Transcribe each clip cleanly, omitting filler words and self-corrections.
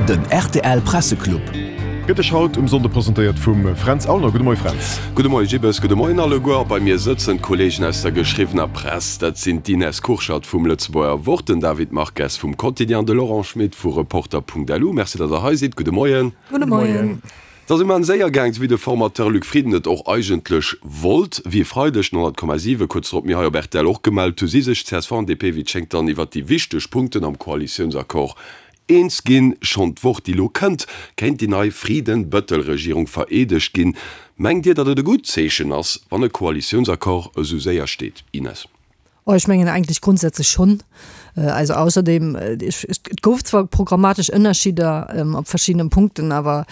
Den rtl Presseclub. Gëtt Iech haut um Sonnde presentéiert vum Fränz Aulner. Gudde Moie Fränz. Gudde Moie Gibbes, gudde Moien alleguer. A bei mir sëtzen d'Kolleegen aus der geschriwwener Press. Dat sinn d'Ines Kurschat vum Lëtzebuerger Wort, den David Marques vum Quotidien, de Laurent Schmit vu Reporter.lu. Merci, datt der hei sidd. Gudde Moien. Gudde Moien. Et ass immens séier gaang, sou wéi de Formateur Luc Frieden et och eigentlech wollt. Wéi e Freideg den 100,7 kuerz drop mir hei op rtl och gemellt hu si sech csv an DP wéi et schéngt dann iwwert déi wichteg Punkten am Koalitiounsaccord eens ginn. Schonn d'Woch déi lo kënnt, kéint déi nei Frieden-Bëttel-Regierung vereedegt ginn. Mengt Dir, datt et e gutt Zeechen ass, wann e Koalitiounsaccord esou séier steet, Ines? Oh, ech mengen eigentlech grundsätzlech schonn. Also ausserdem, et gouf zwar programmatesch Ënnerschidder op verschiddenen Punkten, awer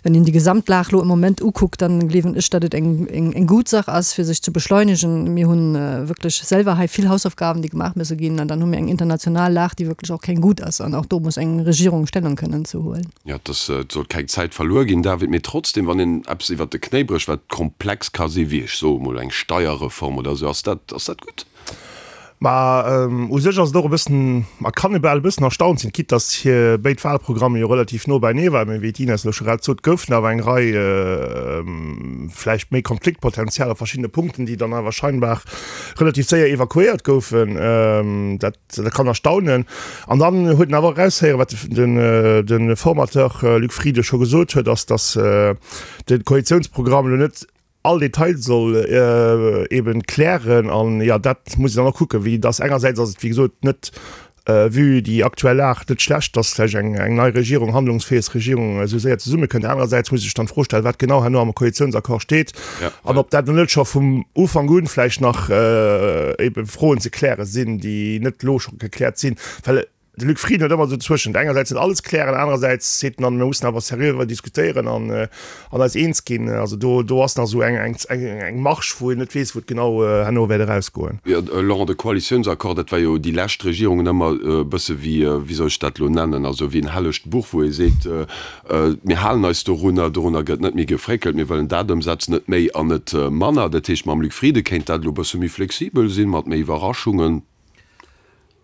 wenn een déi Gesamtlag elo am Moment ukuckt, dann gleewen ech, datt et eng, eng, eng guut Sach ass, fir sech ze beschleunegen. Mir hu wierklech selwer hei vill Hausaufgaben, déi gemaach musse ginn, an dann hu mir eng international Lag, déi wierklech och keng gutt ass, an och do muss eng Regierung Stellung kënnen ze huelen. Jo, et ass, et soll keng Zäit verluer ginn, David, mee trotzdem, wann een eppes iwwert de Knéi brécht, wat komplex ka sinn, wéi ech soe mol eng Steierreform oder esou, ass dat, ass dat gutt? Ma u sech ass et och e bëssen, ma kann e bal e bëssen erstaunt sinn, quitte datt hir béid Wahlprogramme jo relativ no beinee waren, mee wéi d'Ines elo scho grad sot, goufen awer eng Rei vläicht méi Konfliktpotenzial op verschiddene Punkten, déi dann awer scheinbar relativ séier evakuéiert goufen. Dat Dat kann erstaunen. An dann huet en awer och eraushéieren, wat de Formateur Luc Frieden scho gesot huet, ass, datt de Koalitiounsprogramm elo net all Detail soll eben klären. An jo, dat muss een dann och kucken, wéi datt engersäits ass et wéi gesot net, vue déi aktuell Lag, net schlecht, datt vläicht eng nei Regierung, handlungsfäeg Regierung esou séier zesummekënnt. Anerersäits muss ee sech dann d'Fro stellen, wat genau herno am Koalitiounsaccord steet. An ob dat net scho vum Ufank un vläicht nach ebe Froen ze kläre sinn, déi net elo scho gekläert sinn. Well de Luc Frieden huet ëmmer esou zwëschent, engersäits net alles klären, anerersäits seet en dann, mir mussen awer seriö driwwer diskutéieren an an eis eens ginn. Also do do ass nach esou eng eng eng Marge, wou een net weess, wou et genau herno wäert erausgoen. Jo, Laurent, de Koalitiounsaccord, dat war jo déi lescht Regierungen ëmmer e bësse wéi, wéi soll ech dat elo nennen, also wéi en hellegt Buch, wou ee seet, Mir halen eis dorunner, dorunner gëtt net méi gefréckelt, mir wëllen dat ëmsetzen, net méi an net manner. Dat heescht, mam Luc Frieden kéint dat elo e bësse méi flexibel sinn, mat méi Iwwerraschungen.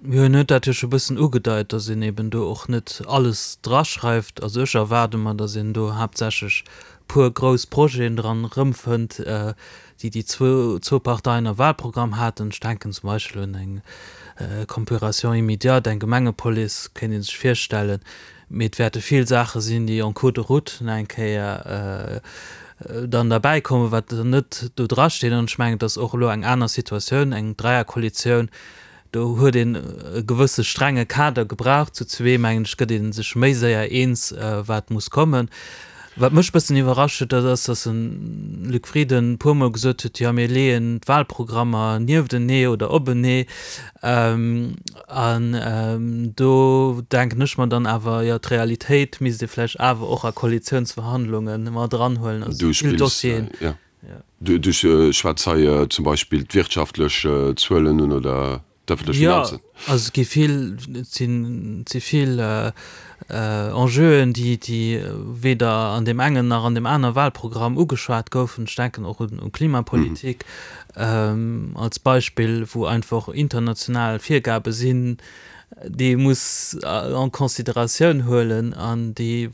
Jo, en huet dat jo scho bëssen ugedeit, datt een eben do och net alles draschreift. Also ech erwaarde mer, datt een do haaptsächlech puer grouss Projeten dran erëmfënnt, déi déi zwou Parteien am Wahlprogramm haten. Ech denken zum Beispill un eng Compuration immédiate, eng Gemengepolice kéint ee sech virstellen. Mee et wäerte vill Saache sinn, déi en cours de route nach eng Kéier dann derbäikommen, wat dann net do drasteet. An ech mengen, et ass och elo eng aner Situatioun, eng Dräierkoalitioun, do huet een e gewësse strenge Kader gebraucht. Zu zwee, mengen ech, gëtt ee sech méi séier eens, wat muss kommen. Wat mech e bëssen iwwerrascht huet, dat ass, datt de Luc Frieden e puermol gesot huet, jo mir leeën d'Wahlprogrammer nieftenee oder openee. An do denken ech mer dann awer, jo d'Realitéit misst ee vläicht awer och a Koalitiounsverhandlunge mat eranhuelen. Also Du vill spills, Dossieren. ja, du schwätz hei zum Beispill d'wirtschaftlech Zuelen un oder? D'ëffentlech Jo, Finanzen. also et gi vill, et sinn, et si vill Enjeuen, déi, déi weder an deem engen nach an deem aner Wahlprogramm ugeschwat goufen. Ech denken och un Klimapolitik als Beispill, wou einfach international Virgabe sinn, déi ee muss en considératioun huelen an déi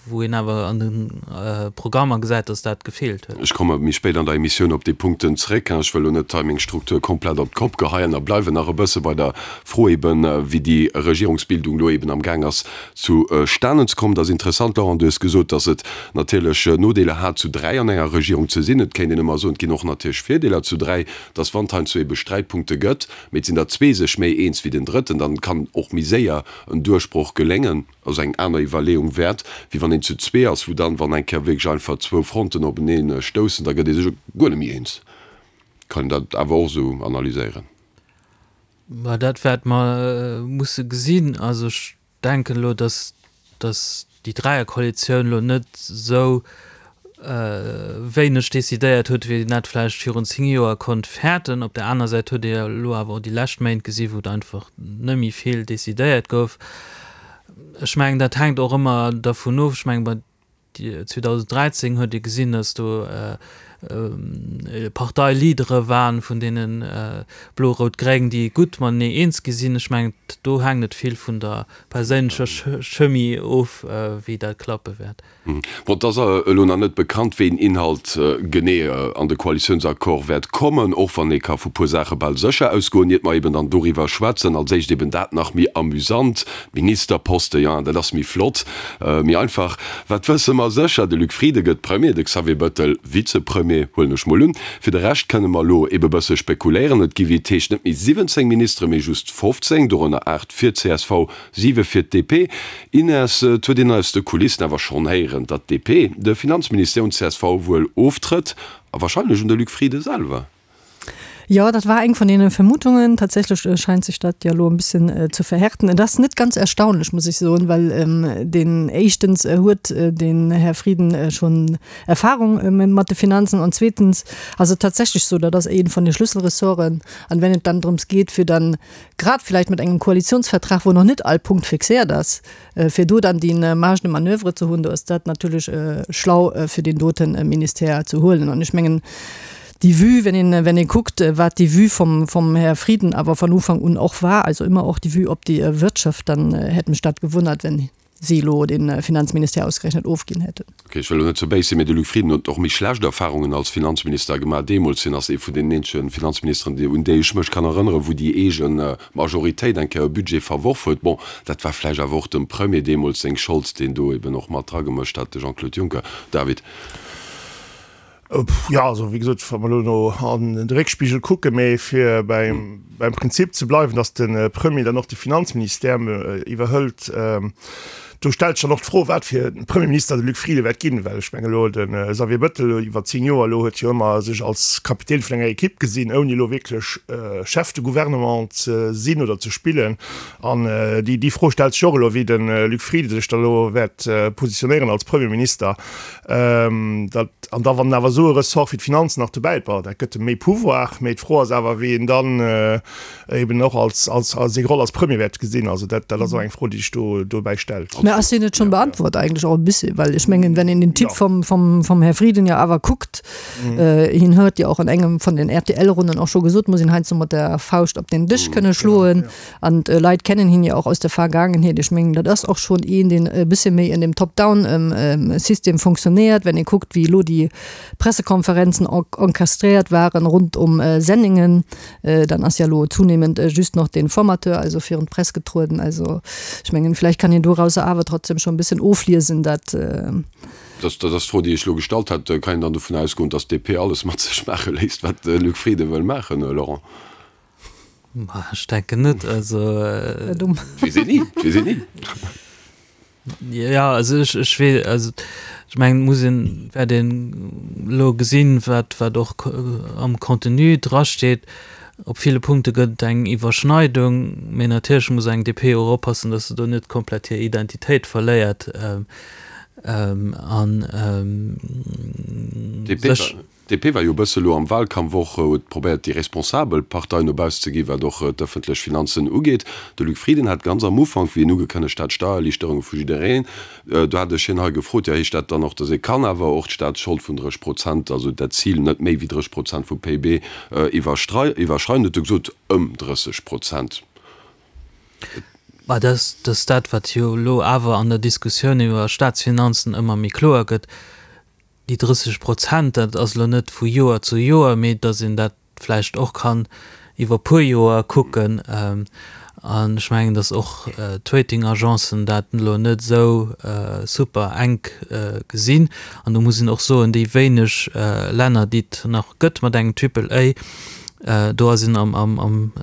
wou een awer an de Programmer gesäit, dass dat gefeelt huet. Ech komme méi spéit an der Emissioun op déi Punkten zréck. Ech wëll elo net hei meng Struktur komplett op d'Kopp geheien a bleiwen nach e bësse bei der Fro eben, wéi déi Regierungsbildung elo eben am Gaang ass zustanen ze kommen. Et ass interessant, Laurent, du hues gesot, dass et natierlech Nodeeler hat, zu 3 an enger Regierung ze sinn. Et kéint een ëmmer soen, et ginn och natierlech Virdeeler zu 3, dass wann et heiansdo ebe Sträitpunkte gëtt, mee et sinn der zwee sech méi eens wéi den Drëtten, dann kann och méi séier en Duerchbroch geléngen. Ass eng aner Iwwerleeung wäert, wéi wann een zu zwee ass, wou dann, wann eng Kéier wierklech einfach zwou Fronten openee stoussen, da gëtt ee sech guer net méi eens. Kann een dat awer och esou analyséieren? Mä dat wäerte mer musse gesinn. Also ech denken elo, datt, datt déi Dräierkoalitioun elo net esou wéineg decidéiert huet, wéi een dat vläicht virun 10 Joer konnt fäerten. Op där aner Säit huet ee jo elo awer och déi lescht Méint gesi wou et einfach net méi vill decidéiert gouf. Ech mengen, dat hänkt och ëmmer dervun of. Ech mengen, bei 2013 huet ee gesinn, datt do. Parteileadere waren vun deene Blo-Rout-Gréng, déi gutt matenee eens gi sinn. Ech mengen, do hänkt et vill vun der perséinlecher Chemie of, wéi dat klappe wäert. Bon, et ass elo nach net bekannt, wéi een Inhalt genee an de Koalitiounsaccord wäert kommen, och wann ee ka vu puer Saache bal sécher ausgoen, iert mer eben dann doriwwer schwätzen. Als éischt eben dat nach méi amüsant, d'Ministerposte, jo, dat ass méi flott, méi einfach. Wat wësse mer sécher? De Luc Frieden gëtt Premier, de Xavier Bettel Vizepremier, huelen ech mol un. Fir de Rescht kënne mer elo ebe bësse spekuléieren. Et gi wéi et heescht net méi 17 Ministere, mee just 15, dorënner 8 fir csv, 7 fir d'DP. Ines, et huet een aus de Kulissen awer schonn héieren, datt d'DP de Finanzministère un d'CSV wuel oftrëtt, a warscheinlech un de Luc Frieden selwer. Jo, dat war eng vun deene Vermutungen. Tatsächlech scheint sech dat jo elo e bëssen ze verhärten. Et ass net ganz erstaunlech, muss ech soen, well deen éischtens huet den Här Frieden schonn Erfahrung mat de Finanzen an zweetens ass et tatsächlech sou, dat ass ee vun de Schlüsselressorten. An wenn et dann drëms geet, fir dann grad vielleicht mat engem Koalitionsvertrag, wou nach net all Punkt fixéiert ass, fir do dann déi Marge de manoeuvre ze hunn, do ass dat natierlech schlau, fir deen dote Ministère ze huelen. An ech mengen, déi Vue, wenn een, wenn ee kuckt, wat déi Vue vum, vum Här Frieden awer von Ufank un och war, also immer och déi Vue op déi Wirtschaft, dann hätt mech dat gewunnert, wenn si elo de Finanzministère ausgerechnet ofginn hätten. Ok, ech wëll elo net ze béis sinn, mee de Luc Frieden huet och méi schlecht Erfahrungen als Finanzminister gemaach deemools. Hien ass ee vun deenen eenzege Finanzministeren, un déi ech mech kann erënneren, wou déi eege Majoritéit eng Kéier e Budget verworf huet. Bon, dat war vläicht awer och dem Premier deemools seng Schold, deen do eben och mat dragemëscht hat, de Jean-Claude Juncker. David. Jo, also wéi gesot, wa mer elo no an de Réckspigel kucken, mee fir beim, beim Prinzip ze bleiwen, datt de Premier dann och de Finanzministère iwwerhëlt, do stellt sech dann och d'Fro, wat fir e Premierminister de Luc Frieden wäert ginn. Well ech menge elo de Xavier Bettel iwwer 10 Joer elo huet jo ëmmer sech als Kapitän vun enger Ekipp gesinn, ouni elo wierklech Chef de Gouvernement ze sinn oder ze spillen. An déi, déi Fro stellt sech och elo, wéi de Luc Frieden sech da elo wäert positionéieren als Premierminister. Dat, an da wann awer esou e Ressort wéi d'Finanzen nach dobäi, bon, dat gëtt em méi Pouvoir, mee d'Fro ass awer, wéi en dann eben och als, als, als seng Roll als Premier wäert gesinn. Also dat, dat ass och eng Fro, déi sech do dobäi stellt. Mä ass déi net schonn beantwort eigentlech och e bëssi? Well ech mengen, wenn een den Typ vum, vum, vum Här Frieden jo awer kuckt, hien huet jo och an engem vun den RTL-Runnen och scho gesot, muss een heiansdo mat der Fauscht op den Dësch kënne schloen. An d'Leit kennen hien jo och aus der Vergaangenheet. Ech mengen, dat ass och schonn een, deen e bësse méi en dem Top-down-System fonctionnéiert. Wenn ee kuckt, wéi elo déi Pressekonferenzen encastréiert waren rund um Senningen, dann ass jo elo zunehmend just noch den Formateur also virun d'Press getrueden. Also ech mengen, vläicht kann een dorauser awer trotzdem schonn e bëssen ofliesen, dat. Dat ass d'Fro, déi ech elo gestallt hat. Kann een dann dovun ausgoen, datt d'DP alles mat sech maache léisst, wat de Luc Frieden wëll maachen, Laurent? Ech denken net, also. Weess een ni, weess een ni. Ja, also ech, ech wee, also ech mengen, et muss een, wäert een elo gesinn, wat, wat och am Contenu drasteet. Op ville Punkte gëtt et eng Iwwerschneidung, mee natierlech muss eng DP och oppassen, datt se do net komplett hir Identitéit verléiert an sech. DP war jo e bësse lo am Wahlkampf och, huet probéiert déi responsabel Partei no bausse ze ginn, wat och d'ëffentlech Finanzen ugeet. De Luc Frieden hat ganz am Ufank, wéi en ugekënnegt hat, Steiererliichterunge vu jiddereen, do hat ech hien hei gefrot, jo heescht dat dann och, datt ee kann awer och d'Staatsschold vun 30 Prozent, also dat Zil net méi wéi 30 Prozent vum PIB iwwerschreien? Huet e gesot, ëm 30 Prozent. Mä dat ass dat, wat jo elo awer an der Diskussioun iwwer Staatsfinanzen ëmmer méi kloer gëtt, Déi 30 Prozent, dat ass elo net vu Joer zu Joer, mee datt een dat vläicht och kann iwwer puer Joer kucken. An ech mengen, datt och d'Rating-Agencen dat elo net esou super enk gesinn. An do muss een och soen, déi wéineg Länner, déi et nach gëtt mat engem Triple A, do ass een am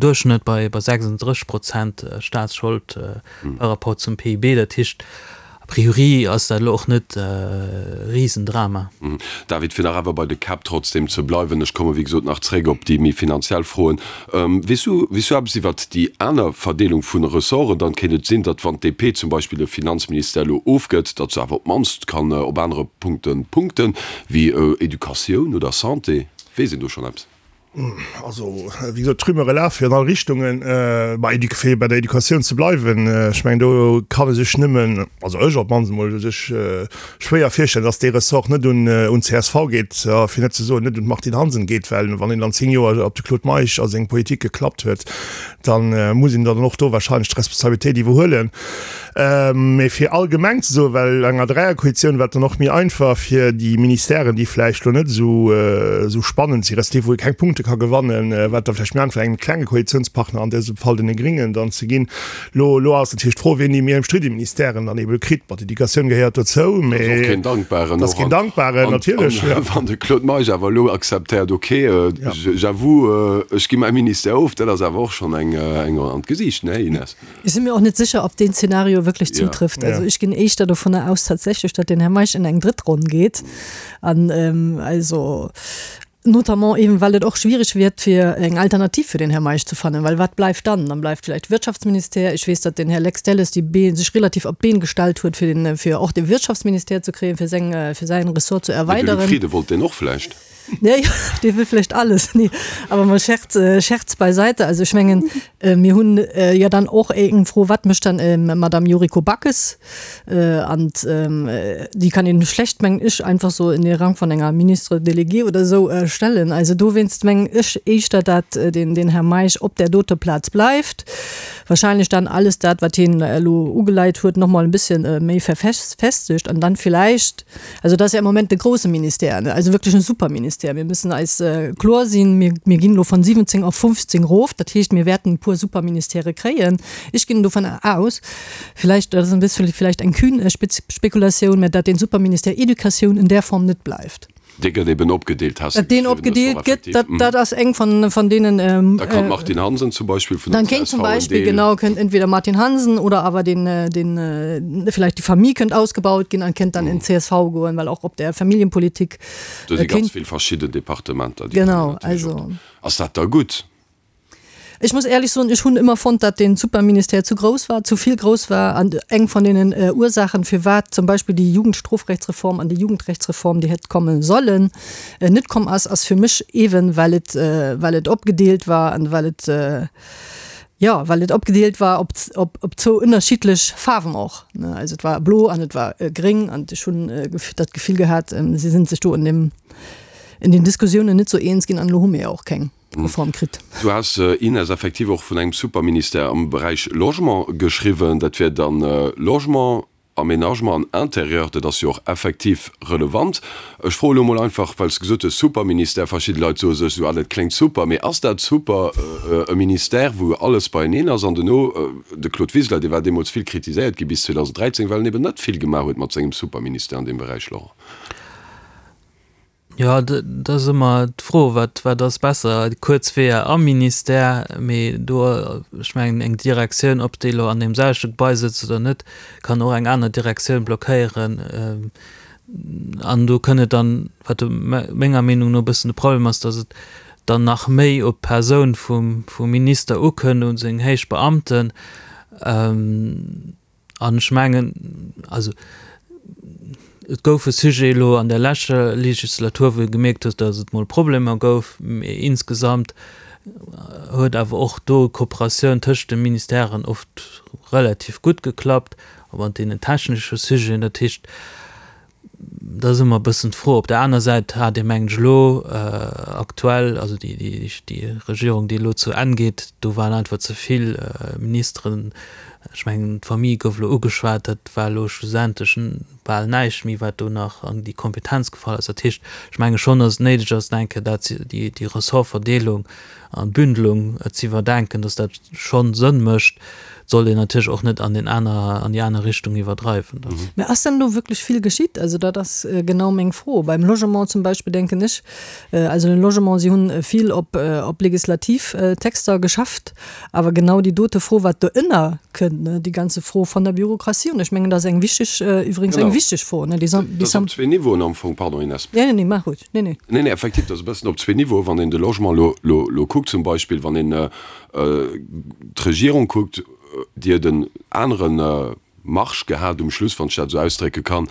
Duerchschnëtt bei 36 Prozent Staatsschold par rapport zum PIB. Dat heescht, A priori ass dat elo och net e Risendrama. David, fir nach awer bei de Käpp trotzdem ze bleiwen, ech komme wéi gesot nach zréck op déi méi finanziell Froen, Weess du, weess du eppes iwwert déi aner Verdeelung vun Ressorten? Dann kéint et sinn, datt wann d'DP zum Beispill de Finanzministère elo ofgëtt, datt se awer op d'mannst kann op anere Punkte punkten, wéi Educatioun oder Santé. Weess een do schonn eppes? Also, wéi gesot, d'Rumeure lafe jo an all Richtungen. Bei Éduc, fir bei der Educatioun ze bleiwen, ech mengen, do kann e sech nëmmen, also ech op d'mannst emol, sech schwéier virstellen, datt dee Ressort net un un csv geet, fir net ze soen, net un d'Martine Hansen geet, well wann een dann 10 Joer op de Claude Meisch a seng Politik geklappt huet, da muss een dann och do wahrscheinlech d'Responsabilitéit iwwerhuelen. Mee fir allgemeng ze soen, well enger Dräierkoalitioun war et dann och méi einfach fir déi Ministèren, déi vläicht elo net esou spannend si respektiv wou ee keng Punkte ka gewannen, war et da vläicht méi einfach engem klenge Koalitiounspartner, an dësem Fall deene Gringen, dann ze ginn. Elo elo ass natierlech d'Fro, wien déi méi ëmstridde Ministèren dann eebe kritt. Bon, d'Educatioun gehéiert dozou, mee. Dat ass och keen Dankbaren. Dat ass keen Dankbaren, natierlech. An wann de Claude Meisch awer elo akzeptéiert, okay, j'avoue, ech gi mäi Ministère of, dat ass awer och schonn eng an d'Gesiicht, ne Ines? Ech si mir och net sécher, ob deen Zeenario wierklech zutrifft. Also ech ginn éischter dovunner aus tatsächlech, datt den Här Meisch in eng drëtt Ronn geet. An also notamment eben, well et och schwierig wird, fir eng Alternativ fir den Här Meisch ze fannen. Well wat bleift dann? Dann bleift vläicht Wirtschaftsministère. Ech weess, datt den Här Lex Delles déi Been, sech relativ op d'Been gestallt huet, fir den, fir och de Wirtschaftsministère ze kréien, fir seng, fir säin Ressort ze Mee de Luc erweideren. Frieden wollt deen och vläicht. Nee, dee wëll vläicht alles. Nee, awer mol Scherz, Scherz beiseite. Also ech mengen, mir hunn jo dann och eng Fro, Wat mécht dann d'Madame Yuriko Backes? An déi kann een schlecht, mengen ech, einfach sou in de Rang vun enger Ministre déléguée oder esou stellen. Also dowéinst mengen ech éischter, dat den, den Här Meisch op där dote Plaz bleift. Wahrscheinlech dann alles dat, wat hien elo ugeleit huet, nochmol e bësschen méi verfestegt an dann villäicht, Also dat ass jo am Moment de grouse Ministère, ne, also wierklech en Superministère. Mir müssen eis kloer sinn, mir, mir ginn elo von 17 op 15 erof. Dat heescht, mir wäerten e puer Superministèrë kréien. Ech ginn dovun aus, villäicht, dat ass en bëssche villäicht eng kühn Spekulatioun, mä datt dee Superministère Educatioun in där Form net bleift. Dee gëtt eben opgedeelt, has de Datt deen geschriwwen. opgedeelt gëtt, dat, dat ass eng von, von deenen. Da kann d'Martine Hansen zum Beispill vun der Dann kéint csv zum en Beispill, Deel. genau, kënnt entweder Martine Hansen oder awer den, den, vielleicht die Famille kënnt ausgebaut ginn an kënnt dann in csv goen, well och op der Familienpolitik Do si ganz kéint. vill verschidden Departementer, déi kënnen Genau, natierlech och. also. Ass dat da gutt? Ech muss éierlech soen, ech hunn ëmmer fonnt, datt dee Superministère zu grouss war, zu vill grouss war. An eng vun deenen Ursaachen, firwat zum Beispill déi Jugendstrofrechtsreform an déi Jugendrechtsreform, déi hätt komme sollen, net komm ass, ass fir mech eeben, well et, well et opgedeelt war an well et, jo, well et opgedeelt war op, op, op zwou ënnerschiddlech Faarwen och, ne. Also et war blo an et war gréng an ech hunn dat Gefill gehat, si sinn sech do an deem, in den Diskussiounen net sou eens ginn an elo hu mir jo och keng. Reform kritt. Du has, Ines, effektiv och vun engem Superministère am Beräich Logement geschriwwen. Dat wier dann Logement, Aménagement an Intérieur. Dat ass jo och effektiv relevant. Ech froe elo mol einfach, well s de gesot hues, Superministère, verschidde Leit soe sech esou, ah, dat kléngt super, mee ass dat super, e Ministère, wou alles beieneen ass? An duerno, de Claude Wiseler, dee war deemools vill kritiséiert gi bis 2013, well en eben net vill gemaach huet mat sengem Superministère an deem Beräich, Laurent. Jo, dat ass ëmmer d'Fro, wat, wat ass besser, kuerz Weeër am Ministère, mee do, ech mengen, eng Direktioun, ob déi elo an deem selwechte Gebai sëtzt oder net, kann och eng aner Direktioun blockéieren. An do kënn et dann, wat menger Meenung no e bëssen de Problem ass, datt et dann nach méi op d'Persoun vum, vum Minister ukënnt, un seng héich Beamten. An ech mengen, also et gouf e Sujet elo an der leschter Legislatur, wou ee gemierkt huet, datt et mol Problemer gouf, mee insgesamt huet awer och do d'Kooperatioun tëscht de Ministèren oft relativ gutt geklappt, och an deenen technesche Sujeten. Dat heescht, Dat ass ëmmer e bëssen d'Fro. Op der aner Säit hat ee mengen ech elo aktuell, also déi déi Regierung déi elo zu Enn geet, do waren einfach ze vill Ministeren. Ech mengen d'Famille gouf elo ugeschwat, dat war elo schlussendlech bal näischt méi wat do nach an déi Kompetenz gefall ass. Dat heescht, ech menge schonn, datt et néideg ass, eng Kéier dat déi déi Ressortverdeelung an d'Bündelung ze iwwerdenken, datt dat schonn Sënn mécht. Et sollt een natierlech och net an den aner, an déi aner Richtung iwwerdreiwen. Mä ass denn do wierklech vill geschitt? Also dat ass genau meng Fro. Beim Logement zum Beispill denken ech, also den Logement, si hunn vill op, op legislativ Texter geschafft, awer genau déi dote Fro, wat doënner kënnt, ne, déi ganze Fro von der Bürokratie, und ech mengen, dat ass eng wichteg, iwwregens eng wichteg Fro, ne, déi. Dat ass op zwee Niveauen am Fong, pardon Inès. Nee, nee, maach ruhig. Nee, nee. Nee, nee, effektiv, dat ass e bëssen op zwee Niveauen. Wann een de Logement elo, elo, elo kuckt zum Beispill, wann een d'Regierung kuckt, déi huet en anere. Marge gehat um Schluss, wann ech dat esou ausdrécke kann,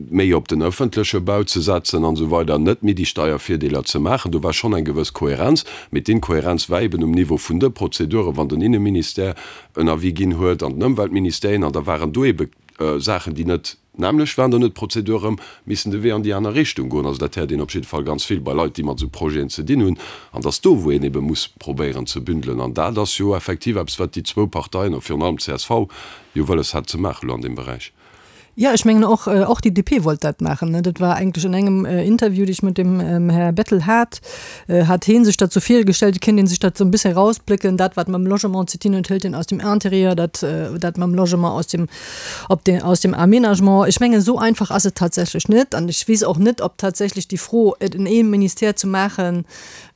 méi op den ëffentleche Bau ze setzen an esou weider, net méi déi Steiervirdeeler ze maachen. Do war schonn eng gewëss Kohärenz, mee d'Inkohärenz war eben um Niveau vun de Prozeduren, wann den Inneministère en Avis ginn huet an den Ëmweltministère een, an da waren do ebe Saachen, déi net nämmlecht waren, dann huet d'Prozedur erëm missen de Wee an déi aner Richtung goen. Also dat héiert een op jidde Fall ganz vill bei Leit, déi mat esou Projeten ze dinn hunn. An dass do, wou een ebe muss probéieren ze bündelen. An dat ass jo effektiv eppes, wat déi zwou Parteien, a virun allem d'CSV, jo wëlles hat ze maachen elo an deem Beräich. Ja, ech mengen och, och déi DP wollt dat maachen. Dat war eigentlech an engem Interview, dee ech mat dem Här Bettel hat, hat hee sech dat sou virgestellt, et kéint ee sech dat sou e bësse erausplécken, dat wat mam Logement ze dinn huet, hëlt een aus dem Intérieur, dat dat mam Logement aus dem op de aus dem Aménagement. Ech mengen, esou einfach ass et tatsächlech net an ech weess och net, ob tatsächlech déi Fro, et en ee Ministère ze maachen,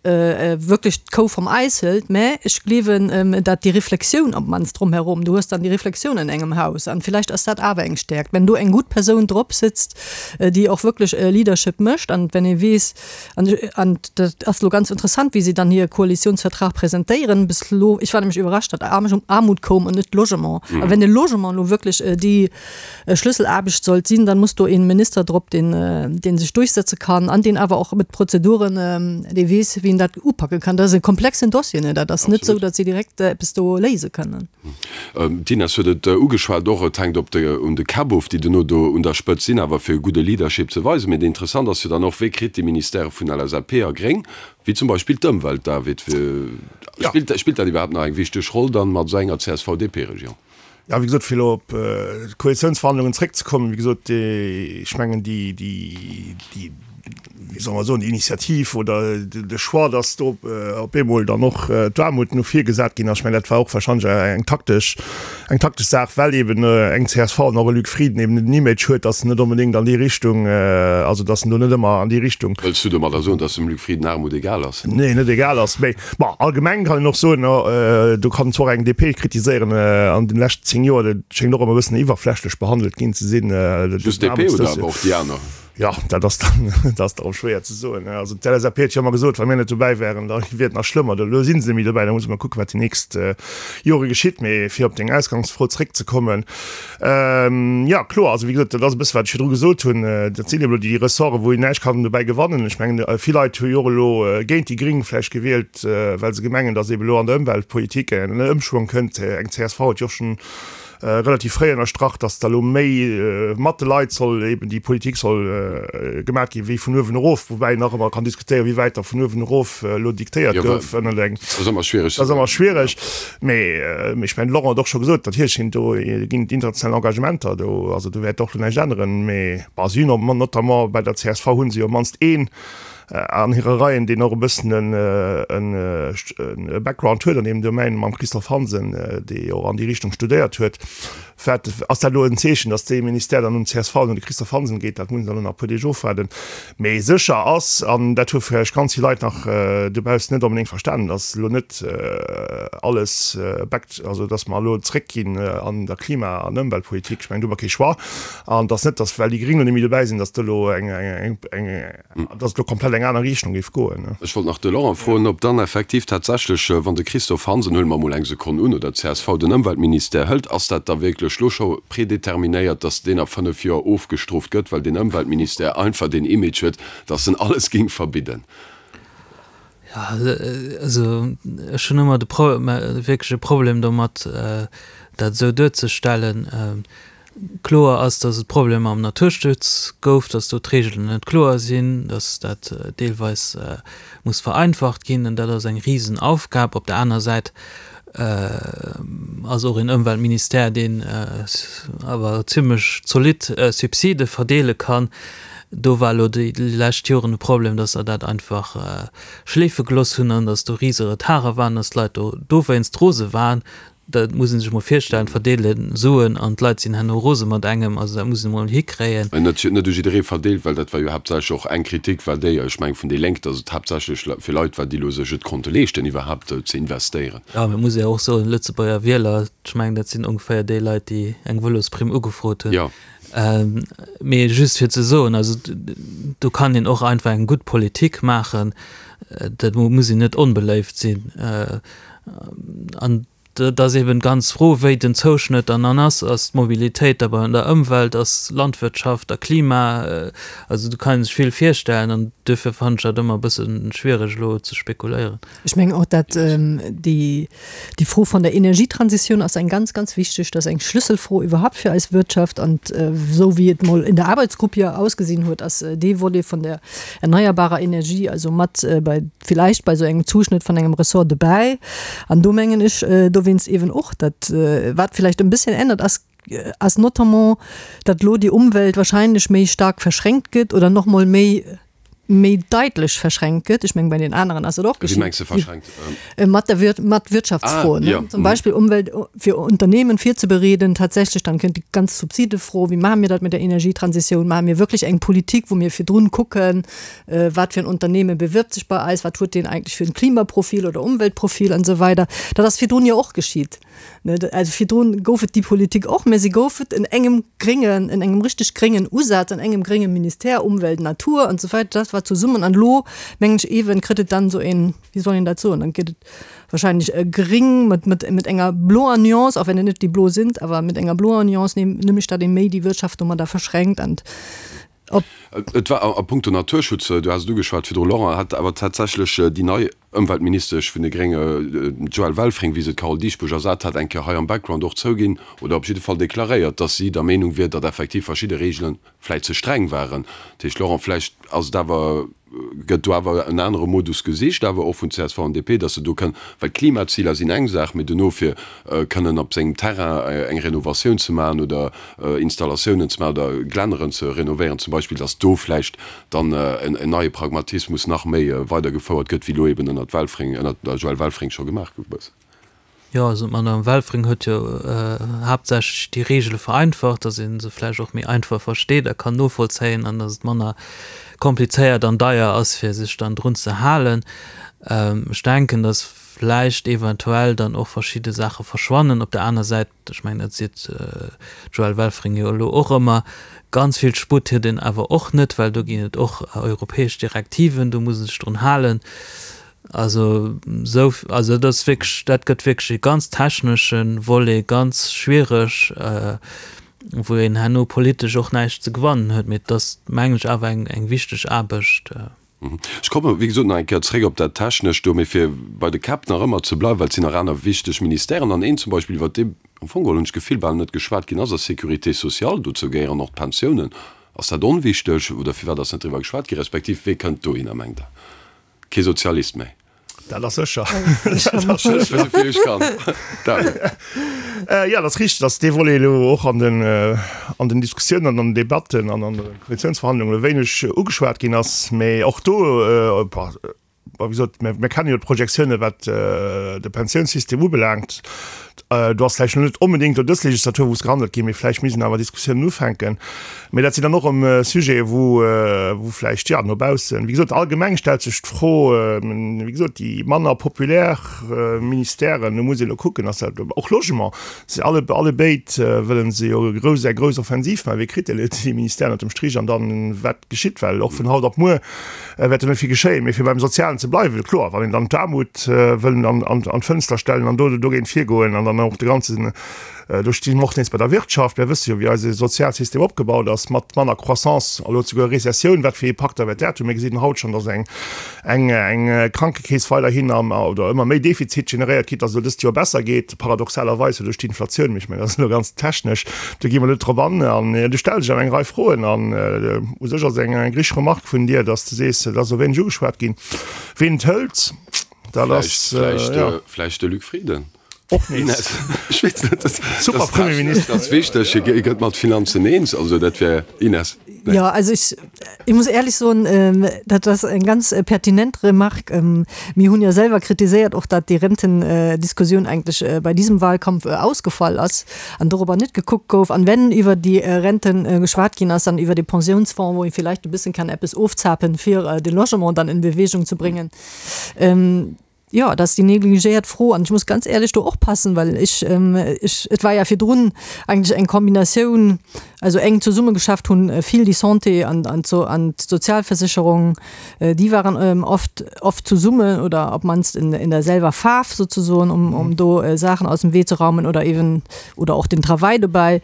wierklech d'Kou vum Eis hëlt, mä ech gleewen, dat déi Reflexioun op d'mannst drumherum, du hues dann déi Reflexioun an engem Haus an villäicht ass dat awer eng Stäerkt, wenn do eng gutt Persoun drop sëtzt, déi och wierklech Leadership mécht an wenn ee weess, An, an dat ass elo ganz interessant, wéi si dann hire Koalitionsvertrag presentéieren. Bis elo, ech war nämlech iwwerrascht, datt Aarmut koum an net Logement. A wenn de Logement elo wierklech déi Schlüsselaarbecht sollt sinn, dann muss do ee Minister drop, deen, dee sech duerchsetze kann an deen awer och mat Prozeduren, dee weess, wéi en dat upake kann. Dat ass e komplexen Dossier, ne? Dat ass net esou, datt si direkt eppes do léise kënnen. D'Ines huet et ugeschwat, och et hänkt op de un de Käpp of, déi duerno do un der Spëtzt sinn, awer fir e gudde Leadership ze weisen. Mee interessant ass jo dann och, Wéi kritt déi Ministèrë vun LSAP a Gréng, wéi zum Beispill d'Ëmwelt, David, spillt spillt dat iwwerhaapt nach eng wichteg Roll dann mat esou enger CSV-DP-Regierung? Jo, wéi gesot, fir elo op d'Koalitiounsverhandlungen zréckzekommen, wéi gesot, ech mengen déi, déi, déi, wéi soll mer soen, déi Initiativ oder de Choix, dass do op eemol dann och d'Aarmut no vir gesat ginn ass, ech mengen, dat war och wahrscheinlech eng taktesch, eng taktesch Saach, well eben eng csv an och e Luc Frieden eben den Image huet, dass en net onbedéngt an déi Richtung, also dass en do net ëmmer an déi Richtung. Wëlls du domadder soen, dass dem Luc Frieden Aarmut egal ass? Nee, net egal ass, mee bon, allgemeng kann een och soen, do kann zwar och eng DP kritiséieren, an den leschten 10 Joer, dat schéngt och ëmmer e bëssen iwwerflächlech behandelt ginn ze sinn. Just d'DP oder awer och déi aner? Jo, dat ass dann, dat ass dann och schwéier ze soen. Also d'LSAP huet jo ëmmer gesot, wa mir net dobäi wären, da wier et nach schlëmmer. Elo si se net méi dobäi, da musse mer kucken, wat déi nächst Jore geschitt. Mee fir op deng Ausgangsfro zréckzekommen, jo kloer, also wéi gesot, dat ass e bësse wat ech virdru gesot hunn, dat sinn elo déi Ressorte wou een näischt kann dobäi gewannen. Ech mengen, vill Leit hu jo och elo géint déi Gring vläicht gewielt, well se gemengen, datt eeben elo an der Ëmweltpolitik en Ëmschwong kënnt. Eng csv huet jo och schonn relativ fréi ënnerstrach, datt da lo méi mat de Leit soll eben déi Politik soll gemaat ginn, wéi vun uewen erof, woubäi een nach ëmmer kann diskutéieren, wéi wäit da vun uewen erof elo diktéiert gouf ënnert eng. Dat ass ëmmer schwiereg. Dat ass ëmmer schwiereg. Mee ech mengen, de Laurent huet och scho gesot, natierlech sinn do, ginn et international Engagementer do, also do wäert och lo näischt änneren. Mee bon, si hunn och notamment bei der csv hu se jo op d'mannst een, an hire Reien, deen och e bëssen e Background huet an deem Domaine, mam Christophe Hansen, dee jo och an déi Richtung studéiert huet. Wat ass dat elo en Zeechen, datt dee Ministère dann un csv an un de Christophe Hansen geet? Dat muss een dann elo nach e puer Deeg ofwaarden. Mee sécher ass, an dat hu vläicht ganz vill Leit nach dobaussen net onbedéngt verstanen, datt elo net alles back, also datt mer elo zréckginn an der Klima an Ëmweltpolitik. Ech mengen, do hu mer kee Choix. An datt net, datt well déi Gréng elo net méi dobäi sinn, datt do elo eng, eng, dass et elo komplett eng aner Richtung géif goen. Ech wollt nach de Laurent froen, ob dann effektiv tatsächlech, wann de Christophe Hansen, huele mer emol eng Sekonn un, oder d'CSV den Ëmweltministère hëlt, ass dat da wierklech elo scho predeterminéiert, dass deen a 5 Joer ofgestrooft gëtt, well deen Ëmweltministère einfach deen Image huet, dass en alles géing verbidden? Jo, also ech hunn ëmmer de Pro, wierklech e Problem domat, dat esou duerzestellen. Kloer ass, datt et Problemer am Naturschutz gouf, datt do d'Reegelen net kloer sinn, datt dat deelweis muss vereinfacht ginn. An dat ass eng Risenaufgab. Op der aner Säit ass och een Ëmweltministère, deen awer zimlech zolidd Subside verdeele kann. Do war elo déi lescht Joren de Problem, datt se dat einfach schleefe gelooss hunn an datt do rise Retarde waren, datt d'Leit do dowéinst rose waren. Dat muss ee sech mol virstellen, verdeele Suen an d'Leit sinn herno rose mat engem. Also dat muss een emol hikréien. Net net u jidderee verdeelt, well dat war jo haaptsächlech och eng Kritik war déi, ech mengen vun déi Lénk, datt et haaptsächlech fir Leit war, déi elo sech et konnte leeschten iwwerhaapt ze investéieren. Jo, mee et muss ee och soen, Lëtzebuerger Wieler, ech mengen dat sinn ongeféier déi Leit, déi eng Vëlosprimm ugefrot hunn. Jo. Mee just fir ze soen, also do kann een och einfach eng gutt Politik maachen, dat muss een net onbeléift sinn. An. Dat ass eben d'ganz Fro, wéi den Zouschnëtt dann dann ass. Ass d'Mobilitéit da bei der Ëmwelt, ass Landwirtschaft a Klima, also do kann ee sech vill virstellen an duerfir fannen ech dat ëmmer e bësse schwiereg elo ze spekuléieren. Ech mengen och, dat déi déi Fro von der Energietransitioun ass eng ganz, ganz wichteg, dat ass eng Schlüsselfro iwwerhaupt fir eis Wirtschaft an esou wéi et mol in der Arbeitsgruppe jo ausgesinn huet, ass dee Volet von der erneuerbarer Energie also mat bei villäicht bei esou engem Zuschnëtt von engem Ressort dobäi. An do mengen ech dowéinst eeben och, dat wat villäicht en bësschen ännert ass, ass notamment, datt elo déi Umwelt wahrscheinlech méi staark verschränkt gëtt oder nach mol méi méi daitlech verschränkt gëtt. Ech mengen, bei den aneren ass et och Wéi geschitt. mengs de verschränkt? Mat der Wir mat Wirtschaftsfroen, Ah, ne? ja. Zum Beispill Umwelt fir Unternehmen virzebereeden, tatsächlech dann kënnt déi ganz Subsidefro, wéi maache mir dat mit der Energietransitioun? Maache mir wierklech eng Politik, wou mir virdrun kucken, wat fir en Unternehmen bewirbt sech bei eis, wat huet deen eigentlech fir en Klimaprofil oder Umweltprofil an esou weider. Dat ass virdrun jo och geschitt. Also virdrun gouf et déi Politik och, mä si gouf et en engem gréngen, en engem richteg gréngen Usaz, an engem grénge Ministère, Umwelt, Natur an esou weider, dat war zesummen. An elo, mengen ech eeben, kritt et dann esou een, wéi soll een dat soen, dann gëtt et wahrscheinlech e gring mat, mat, mat enger bloer Nuance, och wenn et net déi blo sinn, awer mat enger bloer Nuance, nämlech datt ee méi déi Wirtschaft domadder verschränkt an op. Et war a puncto Naturschutz, du has et ugeschwat virdru, Laurent, hat awer tatsächlech déi nei Ëmweltministesch vun de Grénge, d'Joëlle Welfring, wéi se d'Carole Dieschbourg ersat hat, eng Kéier hei am Background och zouginn oder op jidde Fall deklaréiert, datt si der Meenung wier, datt effektiv verschidde Reegele vläicht ze streng waren. Dat heescht, Laurent, vläicht ass et awer, gëtt do awer en anere Modus gesicht, awer och vun csv an DP, datt se do kënnen, well d'Klimaziler sinn eng Saach, mee dono fir kënnen op sengem Terrain eng Renovatioun ze maachen oder Installatiounen ze maachen oder Glänneren ze renovéieren zum Beispill, datt do vläicht dann en neie Pragmatismus nach méi weidergefouert gëtt, wéi elo eben ënnert Welfring, ënnert der Joëlle Welfring scho gemaach gouf e bëssen. Jo, also d'Madame Welfring huet jo haaptsächlech déi Regele vereinfacht, datt ee se vläicht och méi einfach versteet a kann novollzéien an datt et manner komplizéiert an deier ass, fir sech dann drun ze halen. Ech denken, datt vläicht eventuell dann och verschidde Saache verschwannen. Op der aner Säit, Ech mengen, dat seet d'Joëlle Welfring jo elo och ëmmer, ganz vill Sputt huet een awer och net, well do ginn et och europäesch Direktiven, do muss ee sech drun halen. Also esou, also dat ass wierklech, dat gëtt wierklech e ganz technesche Volet, ganz schwiereg, wou een herno politesch och näischt ze gewannen huet. Mee et ass, mengen ech, awer eng wichteg Aarbecht. Ech komme wéi gesot nach eng Kéier zréck op dat Technescht do, mee fir bei de Käpp nach ëmmer ze bleiwen, well et sinn nach aner wichteg Ministèren an een zum Beispill, iwwert dee am Fong geholl, hunn ech d'Gefill, bal net geschwat ginn ass, ass d'Sécurité sociale. Dozou gehéieren och d'Pensiounen. Ass dat onwichteg oder firwat ass net driwwer geschwat ginn, respektiv wee kënnt dohinner, mengt Der? Kee Sozialist méi? Dat ass sécher. Jo, dat ass richteg, datt dee Volet elo och an den, an den Diskussiounen an an den Debatten an an de Koalitiounsverhandlungen e wéineg ugeschwat ginn ass. Mee och do, wéi gesot, mir kenne jo d'Projektiounen, wat de Pensiounssystem ubelaangt. Do ass vläicht elo net onbedéngt elo dës Legislatur, wou es gehandelt ginn, mee vläicht misst een awer Diskussiounen ufänken. Mee dat sinn dann och erëm Sujete, wou, wou vläicht, jo, no baussen, wéi gesot, allgemeng stellt sech d'Fro, wéi gesot, déi manner populär Ministèren, do muss ee elo kucken, ass dat och Logement, se alle, allebéid wëlle se jo grouss, eng grouss Offensiv maachen, wee kritt déi Ministèren ënner dem Strich an dann, wat geschitt, well och vun haut op muer wäert jo net vill geschéien. Mee fir beim Sozialen ze bleiwen, kloer, wann een dann d'Aarmut wëll an d'Fënster stellen an do dogéint virgoen an dann och de ganzen, do sti mer och nees bei der Wirtschaft, mir wësse jo wéi eise Sozialsystem opgebaut ass, mat manner Croissance, elo souguer Rezessioun, wat fir Impakter wäert dat hunn? Mir gesinn haut schonn, datt eng eng Krankekeess weiderhin am oder ëmmer méi Defizit generéiert kritt, datt et elo dëst Joer besser geet, paradoxalerweis jo duerch d'Inflatioun, mee ech mengen, dat ass elo ganz technesch, do gi mer net drop an. An du stells dech awer eng Rei Froen an u sech ass et eng eng richteg Remarque vun dir, datt s de sees, et ass esou wéineg ugeschwat ginn. Ween et hëlt, dat ass, jo. Vläicht de Luc Frieden. Och nees. Ech weess net, dat Super Premierminister. Dat ass wichteg, hie gëtt mat Finanzen eens, also dat wär, Ines? Nee. Jo, also ech, ich muss ehrlich soen, dat ass eng ganz pertinent Remarque. Mir hunn jo selwer kritiséiert och, datt déi Rentendiskussioun eigentlech bei diesem Wahlkampf ausgefall ass an dorobber net gekuckt gouf. An wenn iwwer déi Renten geschwat ginn ass, dann iwwer de Pensiounsfonds, wou ee vielleicht e bëssen kann eppes ofzapen, fir de Logement dann in Bewegung ze bréngen. Jo, dat ass déi negligéiert Fro an ech muss ganz éierlech do och passen, well ech, ech, et war ja virdrun eigentlech eng Kombinatioun, also enk zesummegeschafft hunn vill déi Santé an, an d'So, an d'Sozialversicherung, déi waren oft, oft zesummen oder op d'mannst in, in der selwer Faarf sozesoen, um, um do Saachen aus dem Wee ze raumen oder eben, oder och den Travail dobäi.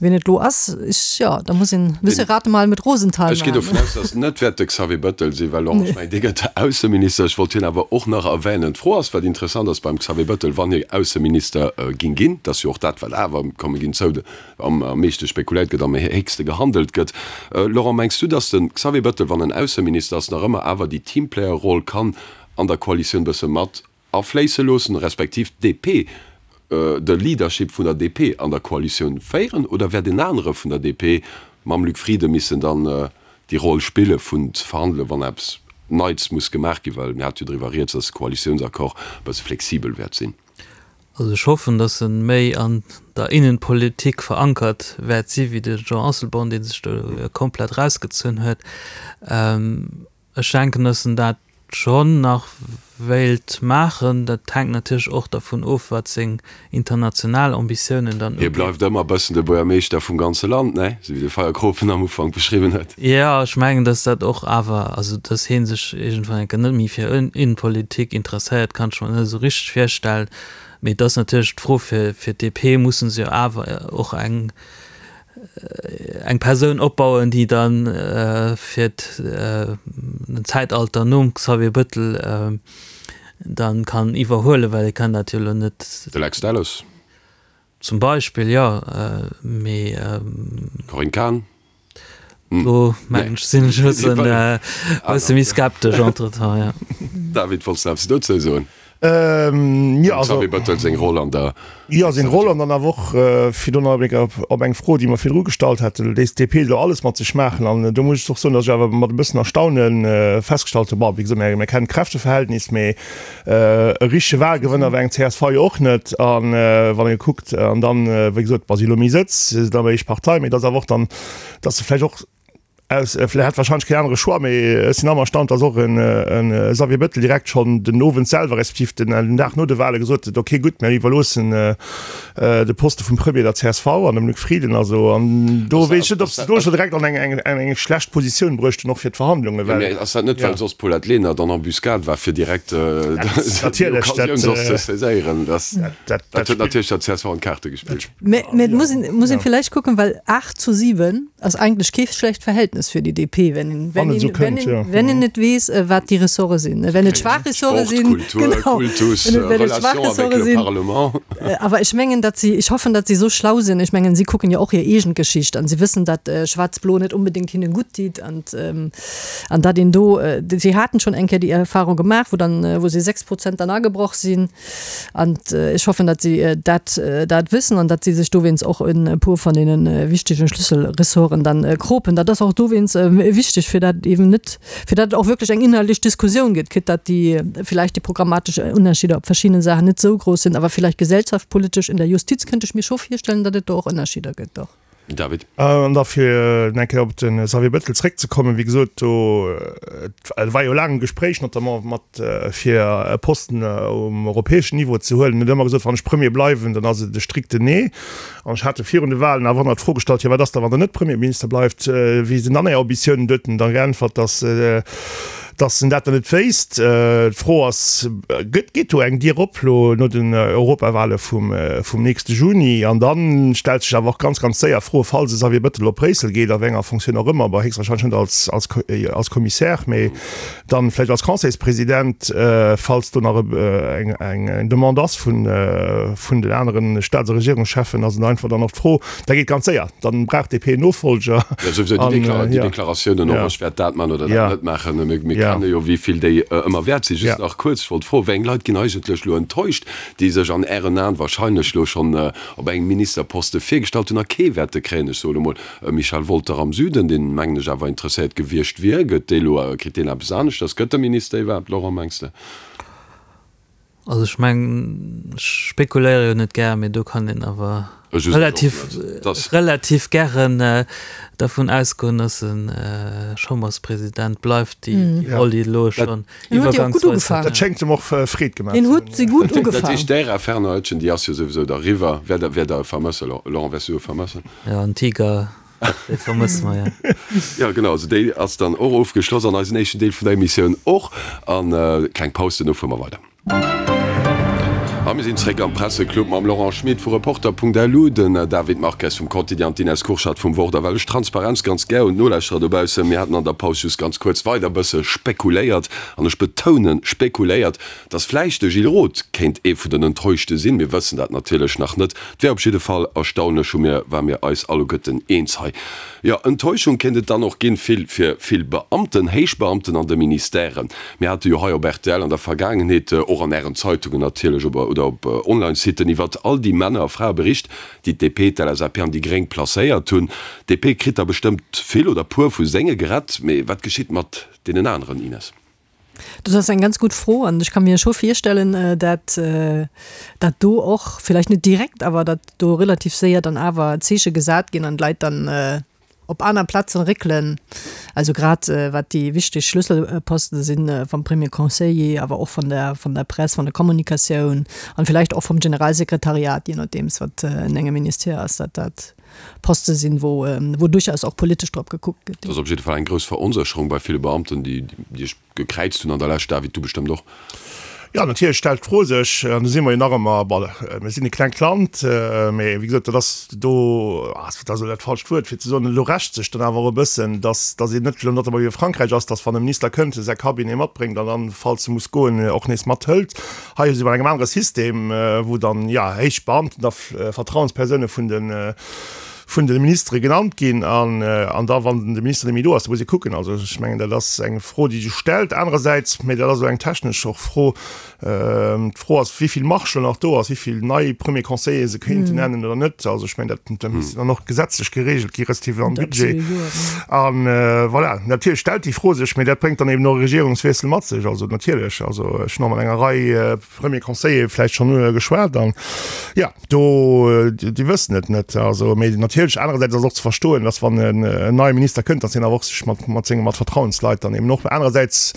Wien et lo ass, ech, jo, da muss een e bësse Rate mal mit Rosenthal Ech ginn dovun maachen. aus, datt et net wäert de Xavier Bettel sinn, well Laurent, ech mengen, dee gëtt Ausseminister. Ech wollt hien awer och nach erwänen. D'Fro ass, wat interessant ass beim Xavier Bettel, wann hie Ausseminister ging ginn, dat ass jo och dat, wat awer, komme ginn zou, am meeschte spekuléiert gëtt, am héchste gehandelt gëtt. Laurent, mengs du, datt de Xavier Bettel, wann en Ausseminister ass, nach ëmmer awer déi Teamplayer-Roll kann an der Koalitioun bësse mat afléisse loossen, respektiv d'DP, de Leadership vun der DP an der Koalitioun féieren, oder wäert en anere vun der DP mam Luc Frieden missen dann déi Roll spille vun ze verhandelen, wann eppes Neits muss gemaach ginn, well mir hate jo driwwer rieds, datt de Koalitiounsaccord e bësse flexibel wäert sinn. Also ech hoffen, datt e méi an der Innenpolitik verankert wäert si wéi de Jean Asselborn, dee sech do komplett erausgezunn huet. Ech denken, dass en dat schonn nach wéilt maachen. Dat hänkt natierlech och dervun of, wat seng international Ambitiounen dann Hie uginn. bleift ëmmer e bëssen de Buergermeeschter vum ganze Land, ne? Esou wéi de Feierkropen am Ufank beschriwwen huet. Jo, ech mengen, dass dat och awer, also dass hie sech iergendwann eng Kéier net méi fir Innenpolitik interesséiert, kann ech mer net esou richteg virstellen. Mee et ass natierlech d'Fro, fir d'DP musse se jo awer och eng eng Persoun opbauen, déi dann fir den Zäitalter nom Xavier Bëttel dann kann iwwerhuelen, well e kann dat jo elo net. De Lex Delles. Zum Beispill, jo, mee. Corinne Cahen. Do mengen ech, sinn ech e bëssen, e bësse méi skeptesch entretemps, jo. David, wollts de eppes dozou soen? Ähm, ja, also, Xavier Bettel seng Roll an der. Ja, seng Roll an dann awer och, fir do nach eng op eng Fro, déi mer virdru gestallt haten, léisst d'DP elo alles mat sech maachen? An do muss ech och soen, datt ech awer mat e bëssen Erstaune festgestallt hunn, bon, wéi gesot, mir kennen d'Kräfteverhältnis, mee e richtege Wahlgewënner war eng csv jo och net. A wann ee kuckt, an dann, wéi gesot, wa si elo méi Sëtz, si sinn awer éischt Partei, mee et ass awer och dann, datt se vläicht och, Aus, vläicht hat wahrscheinlech keen anere Choix, mee ech sinn awer erstaunt, dass och en Xavier Bettel direkt schonn den Owend selwer, respektiv den Dag no de Wahle gesot huet, ok gutt, mir iwwerloossen de Poste vum Premier der csv an dem Luc Frieden. Also an do weess ech net, ob se do scho direkt an eng eng schlecht Positioun bruecht hunn, och fir d'Verhandlungen, well. Mee ass dat net, well soss d'Paulette Lenert an Embuscade war, fir direkt déi Occasioun soss ze saiséieren? Dat huet natierlech der csv an d'Kaarte gespillt. Mee et muss een villäicht kucken, well 8 zu 7 ass eigentlech kee schlecht Verhältnis fir déi DP, wenn een, wenn een, wenn een, wenn een net weess, wat déi Ressorte sinn. Wenn et schwaach Ressorte sinn, genau, wenn et schwaach Ressorte sinn. Awer ech mengen, datt si, ech hoffen, datt si esou schlau sinn, ech mengen, si kucken jo och hir eegen Geschicht an si wëssen, datt Schwaarz-Blo net unbedéngt hinnen gutt deet an, an datt een do, si haten schonn eng Kéier déi Erfahrung gemaach, wou dann, wou si 6 Prozent dann agebroch sinn. An ech hoffen, datt si dat dat wëssen an datt si sech dowéinst och e puer van deene wichtegen Schlüsselressorten dann kropen. Dat ass och dowéinst wichteg, fir dat eben net, fir dat et och wierklech eng inhaltlech Diskussioun gëtt, quitte datt déi villäicht déi programmatesch Ënnerscheeder op verschiddene Saachen net esou grouss sinn, awer villäicht gesellschaftspolitesch in der Justiz kënnt ech mir scho virstellen, datt et do och Ënnerscheeder gëtt, och. David. An da fir eng Kéier op de Xavier Bettel zréckzekommen, wéi gesot, do et war jo laang e Gespréich notamment mat fir e Posten um europäeschen Niveau ze huelen. En huet ëmmer gesot, wann ech Premier bleiwen, dann ass et e strikten Nee. An ech hat e virun de Wahlen awer ëmmer d'Fro gestallt, jo wat ass da wann Der net Premierminister bleift, wéi sinn dann Är Ambitiounen? Do huet en da geäntwert, datt Dass en dat dann net wéisst. D'Fro ass, gëtt, geet do eng Dier op lo no den Europawale vum, vum nächste Juni? An da stellt sech awer och ganz, ganz séier d'Fro, falls e Xavier Bettel op Bréissel geet, a wéi enger Fonctioun och ëmmer, bon, héchstwahrscheinlech net als, als, als Commissaire, mee dann vläicht als Conseilspresident, falls do nach eng, eng Demande ass vun, vun den aneren Staats a Regierungscheffen, ass et einfach dann och d'Fro, Dat geet ganz séier, dann brauch d'DP en Nofolger. Jo, souwisou déi Dekla déi Deklaratiounen och, ech wäert dat man oder dat net maachen, mir mir kenne jo wéi vill déi ëmmer wäert sinn. Just nach kuerz, ech wollt froen, wéi eng Leit ginn eigentlech elo enttäuscht, déi sech an Ären Aen wahrscheinlech elo schonn op engem Ministerposte virgestallt hunn a kee wäerte kréien? Ech soe lo mol e Michel Wolter am Süden, deen mengen ech awer interesséiert gewiescht wier. Gëtt dee lo, kritt deen eppes aneschters? Gëtt e Minister iwwerhaapt, Laurent, mengs de? Also ech mengen, ech spekuléiere jo net gär, mee do kann een awer relativ, relativ gären dervun ausgoen, datt e Chamberspresident bleift, déi Roll, déi elo schonn iwwergangsweis huet. Dat schéngt em och Freed gemaach ze hunn. Hien huet se gutt ugefaang. Dat heescht, d'Ära Fernand Etgen, déi ass jo souwisou da eriwwer. Wäert Der e vermëssen, Laurent, wäers du e vermëssen? Jo, en Tiger. Déi vermësse mer, jo. Jo, genau. Also déi ass dann och ofgeschloss an eisen éischten Deel vun der Emissioun och. An kleng Paus, duerno fuere mer weider. A mir sinn zréck am Presseclub mam Laurent Schmit vu Reporter.lu, den David Marques vum Quotidien an d'Ines Kurschat vum Wort. A well ech Transparenz ganz gär hunn, d'Nolauschterer dobaussen, mir haten an der Paus just ganz kuerz weider e bësse spekuléiert, an ech betounen spekuléiert, dass vläicht de Gilles Roth kéint ee vun den Enttäuschte sinn. Mir wëssen dat natierlech nach net. Et wär op jidde Fall erstaunlech, hu mir, ware mir eis alleguerten eens hei. Jo, Enttäuschung kéint et dann och ginn, vill fir vill Beamten, Héichbeamten an de Ministèren. Mir hate jo hei op rtl an der Vergaangenheet, och an Ären Zeitungen natierlech op oder op Online-Siten, iwwert all déi Männer a Frae bericht, déi d'DP, d'LSAP an déi Gréng placéiert hunn. D'DP kritt der bestëmmt vill oder puer vu senge gerett, mee wat geschitt mat deenen aneren, Ines? Dat ass eng ganz gutt Fro an ech ka mir scho virstellen, dat dat do och, vläicht net direkt, awer datt do relativ séier dann awer Zeeche gesat ginn an d'Leit dann op aner Plazen réckelen. Also grad wat déi wichteg Schlüsselposten sinn, vum Premier Conseiller, awer och vun der vun der Press, vun der Kommunikatioun an vläicht och vum Generalsekretariat, je nodeems wat en engem Ministère ass, dat dat Poste sinn, wou wou duerchaus och politesch drop gekuckt gëtt. Et ass op jidde Fall eng grouss Veronsécherung bei ville Beamten, déi déi ech gekräizt hunn an der Lescht. David, du bestëmmt och. Jo, natierlech stellt d'Fro sech, an do si mer jo nach ëmmer, bon, mir sinn e klengt Land, mee wéi gesot, dat ass do, dat ass elo dat falscht Wuert fir ze soen, elo rächt sech dann awer och e bëssen, dass dass een net elo notamment wéi a Frankräich ass, dass wann e Minister kënnt, e säi Cabinet matbréngt an dann, falls e muss goen, och nees mathëlt. Hei si mer an engem anere System, wou dann, jo, héich Beamten da Vertrauenspersoune vun de vun de Ministere genannt ginn an an da wann de Minister net méi do ass, da muss ee kucken. Also ech mengen dat ass eng Fro déi sech stellt. Anerersäits, mä dat ass elo eng technesch och Fro, d'Fro ass wéi vill Marge elo nach do ass, wéi vill nei Premier Conseiller se kéinten nennen oder net. Also ech mengen dat dat misst dann och gesetzlech geregelt gi respektiv am Budget. An voilà, natierlech stellt déi Fro sech, mä dat bréngt dann eben och e Regierungswiessel mat sech. Also natierlech, also ech hunn och mat enger Rei Premier Conseiller vläicht schonn geschwat an jo, do, déi wëssen et net. Also, mee natierlech anerersäits ass och ze verstoen, datt wann en neie Minister kënnt, datt hien awer och sech mat mat senge mat Vertrauensleit dann eben och. Anerersäits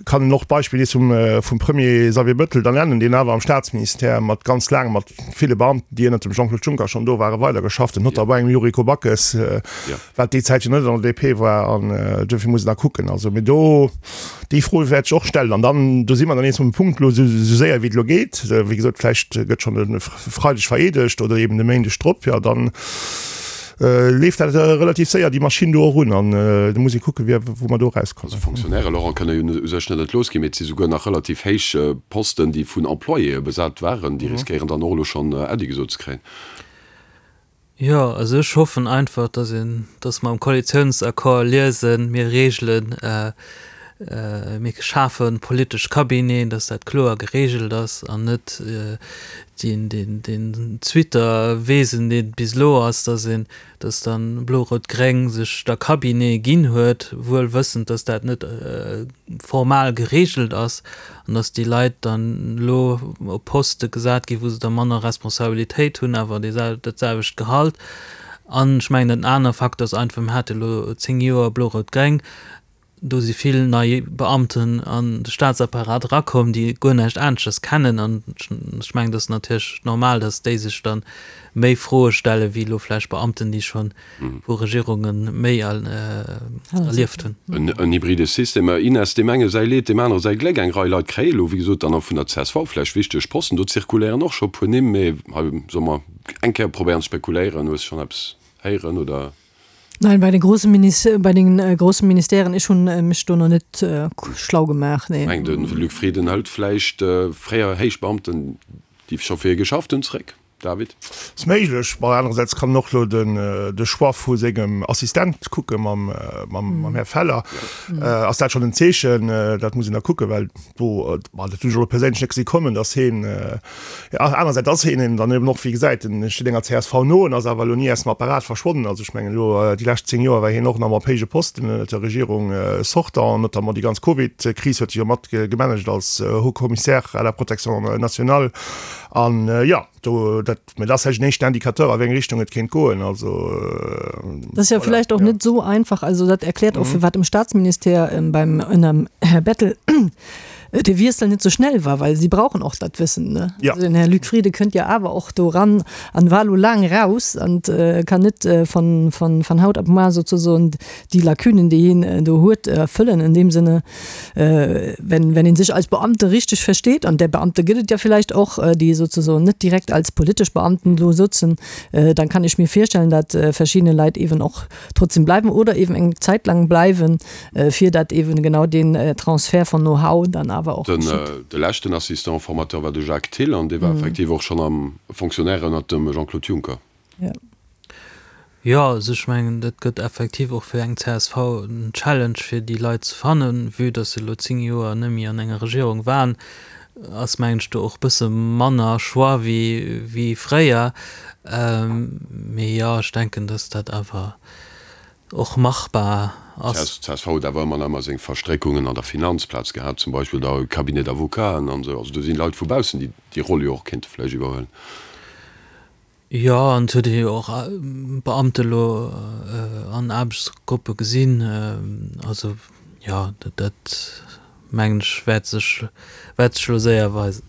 kann een och d'Beispill nees vum vum Premier Xavier Bettel da nennen, deen awer am Staatsministère mat ganz laang mat ville Beamten, déi ënnert dem Jean-Claude Juncker schonn do waren, weidergeschafft huet, notamment engem Yuriko Backes, wat déi Zäit jo net an der DP war an duerfir muss een da kucken. Also, mee do, déi Fro wäert ech och stellen an dann, do si mer dann nees um Punkt elo, esou séier wéi et elo geet, wéi gesot, vläicht gëtt schonn e Freideg vereedegt oder eben de Méindeg drop, jo dann leeft dat relativ séier déi Maschinn do och un an da muss ee kucken, wéi, wou mer do erauskommen. Also Fonctionnaire, Laurent, kënne jo u sech net entlooss ginn, mee et si souguer nach relativ héich Posten, déi vun Employéë besat waren, déi riskéieren dann och elo schonn Äddi gesot ze kréien. Jo, also ech hoffen einfach, dass een, dass mer am Koalitiounsaccord liesen, mir regelen, mir schafe politesch Cabineten, dass dat kloer geregelt ass an net deen, deen, deen Zwitterwesen, deen et bis elo ass, dass een, dass dann Blo-Rout-Gréng sech da Cabinete ginn huet, wuel wëssend, dass dat net formal geregelt ass an dass déi Leit dann elo op Poste gesat ginn, wou se da manner Responsabilitéit hunn, awer dat selwecht Gehalt. An ech mengen, en aner Facteur ass einfach, mir hate elo 10 Joer Blo-Rout-Gréng, do si vill nei Beamten an de Staatsapparat erakomm, déi guer näischt aneschters kennen. An ech mengen, dat ass natierlech normal, dass déi sech da méi Froe stelle wéi elo vläicht Beamten, déi scho vu Regierunge méi erlieft hunn. En hybride System, Ines, deem enge säi Leed, deem anere säi Gléck. Eng Rei Leit kréie elo, wéi gesot, dann och vun der csv vläicht wichteg Posten. Do zirkuléieren och scho e puer Nimm, mee hei solle mer eng Kéier probéieren ze spekuléieren. Hues schonn eppes héieren, oder? Nein, bei den großen Minis bei den großen Ministèren, ech hunn mech do nach net schlau gemaach, nee. Meng de Luc Frieden hëlt vläicht fréier Héichbeamten, déi scho fir hie geschafft hunn, zréck. David? Ass méiglech. Bon, anerersäits kann en och elo den de Choix vu sengem Assistent kucke mam mam Här Feller. Ass dat schonn en Zeechen? Dat muss een da kucken, well do, bon, dat hunn ech elo perséinlech net gesi kommen, datt heen, anerersäits ass heen een dann eben och, wéi gesäit, en steet enger csv no, en ass awer elo ni aus dem Apparat verschwonnen. Also ech mengen elo déi lescht 10 Joer war hien och nach ëmmer op héije Posten ënnert der Regierung sortant, notamment déi ganz Covid-Kris huet hie jo mat gemanagt als Haut Commissaire à la protection nationale. An jo, do, dat, mä dat ass vläicht en éischten Indicateur, a wéi eng Richtung et kéint goen. Also, Dat ass jo voilà, vläicht och ja. net esou einfach. Also dat erkläert och, firwat um Staatsministère beim ënnerm Här Bettel de Wiessel net esou schnell war, well si brauchen och dat Wëssen, ne? Ja. Also den Här Luc Frieden kënnt jo awer och do eran an war elo laang raus an kann net von, von, von haut op moar sozusagen déi Lacunen, déi hien do huet, erfëllen. In deem Sinne, wenn, wenn een sech als Beamte richtig versteet, an där Beamte gëtt et ja vielleicht och, déi sozusagen net direkt als politesch Beamten do sëtzen, dann kann ech mir virstellen, dat verschiedene Leit eben och trotzdem bleiwen oder eben eng Zäit lang bleiwen, fir dat eben genau deen Transfert von Know-how dann awer och Den, geschitt. de leschten Assistant formateur war de Jacques Thill an dee war effektiv och schonn am Fonctionnaire ënnert dem Jean-Claude Juncker. Ja. Jo, also ech mengen, dat gëtt effektiv och fir eng csv en Challenge, fir déi Leit ze fannen. Vue datt se elo 10 Joer net méi an enger Regierung waren, ass mengen ech do och bësse manner Choix wéi wéi fréier. Mee jo, ech denken, datt dat awer och machbar ass. D'csv huet awer ëmmer nach ëmmer seng Verstréckungen an der Finanzplaz gehat, zum Beispill da Cabinet d'avocaten an esou. Also do sinn Leit vu baussen, déi déi Roll jo och kéinte vläicht iwwerhuelen. Jo, an et huet ee jo och Beamte elo an Aarbechtsgruppe gesinn. Also jo, dat mengen ech wäert sech, wäert sech elo séier weisen.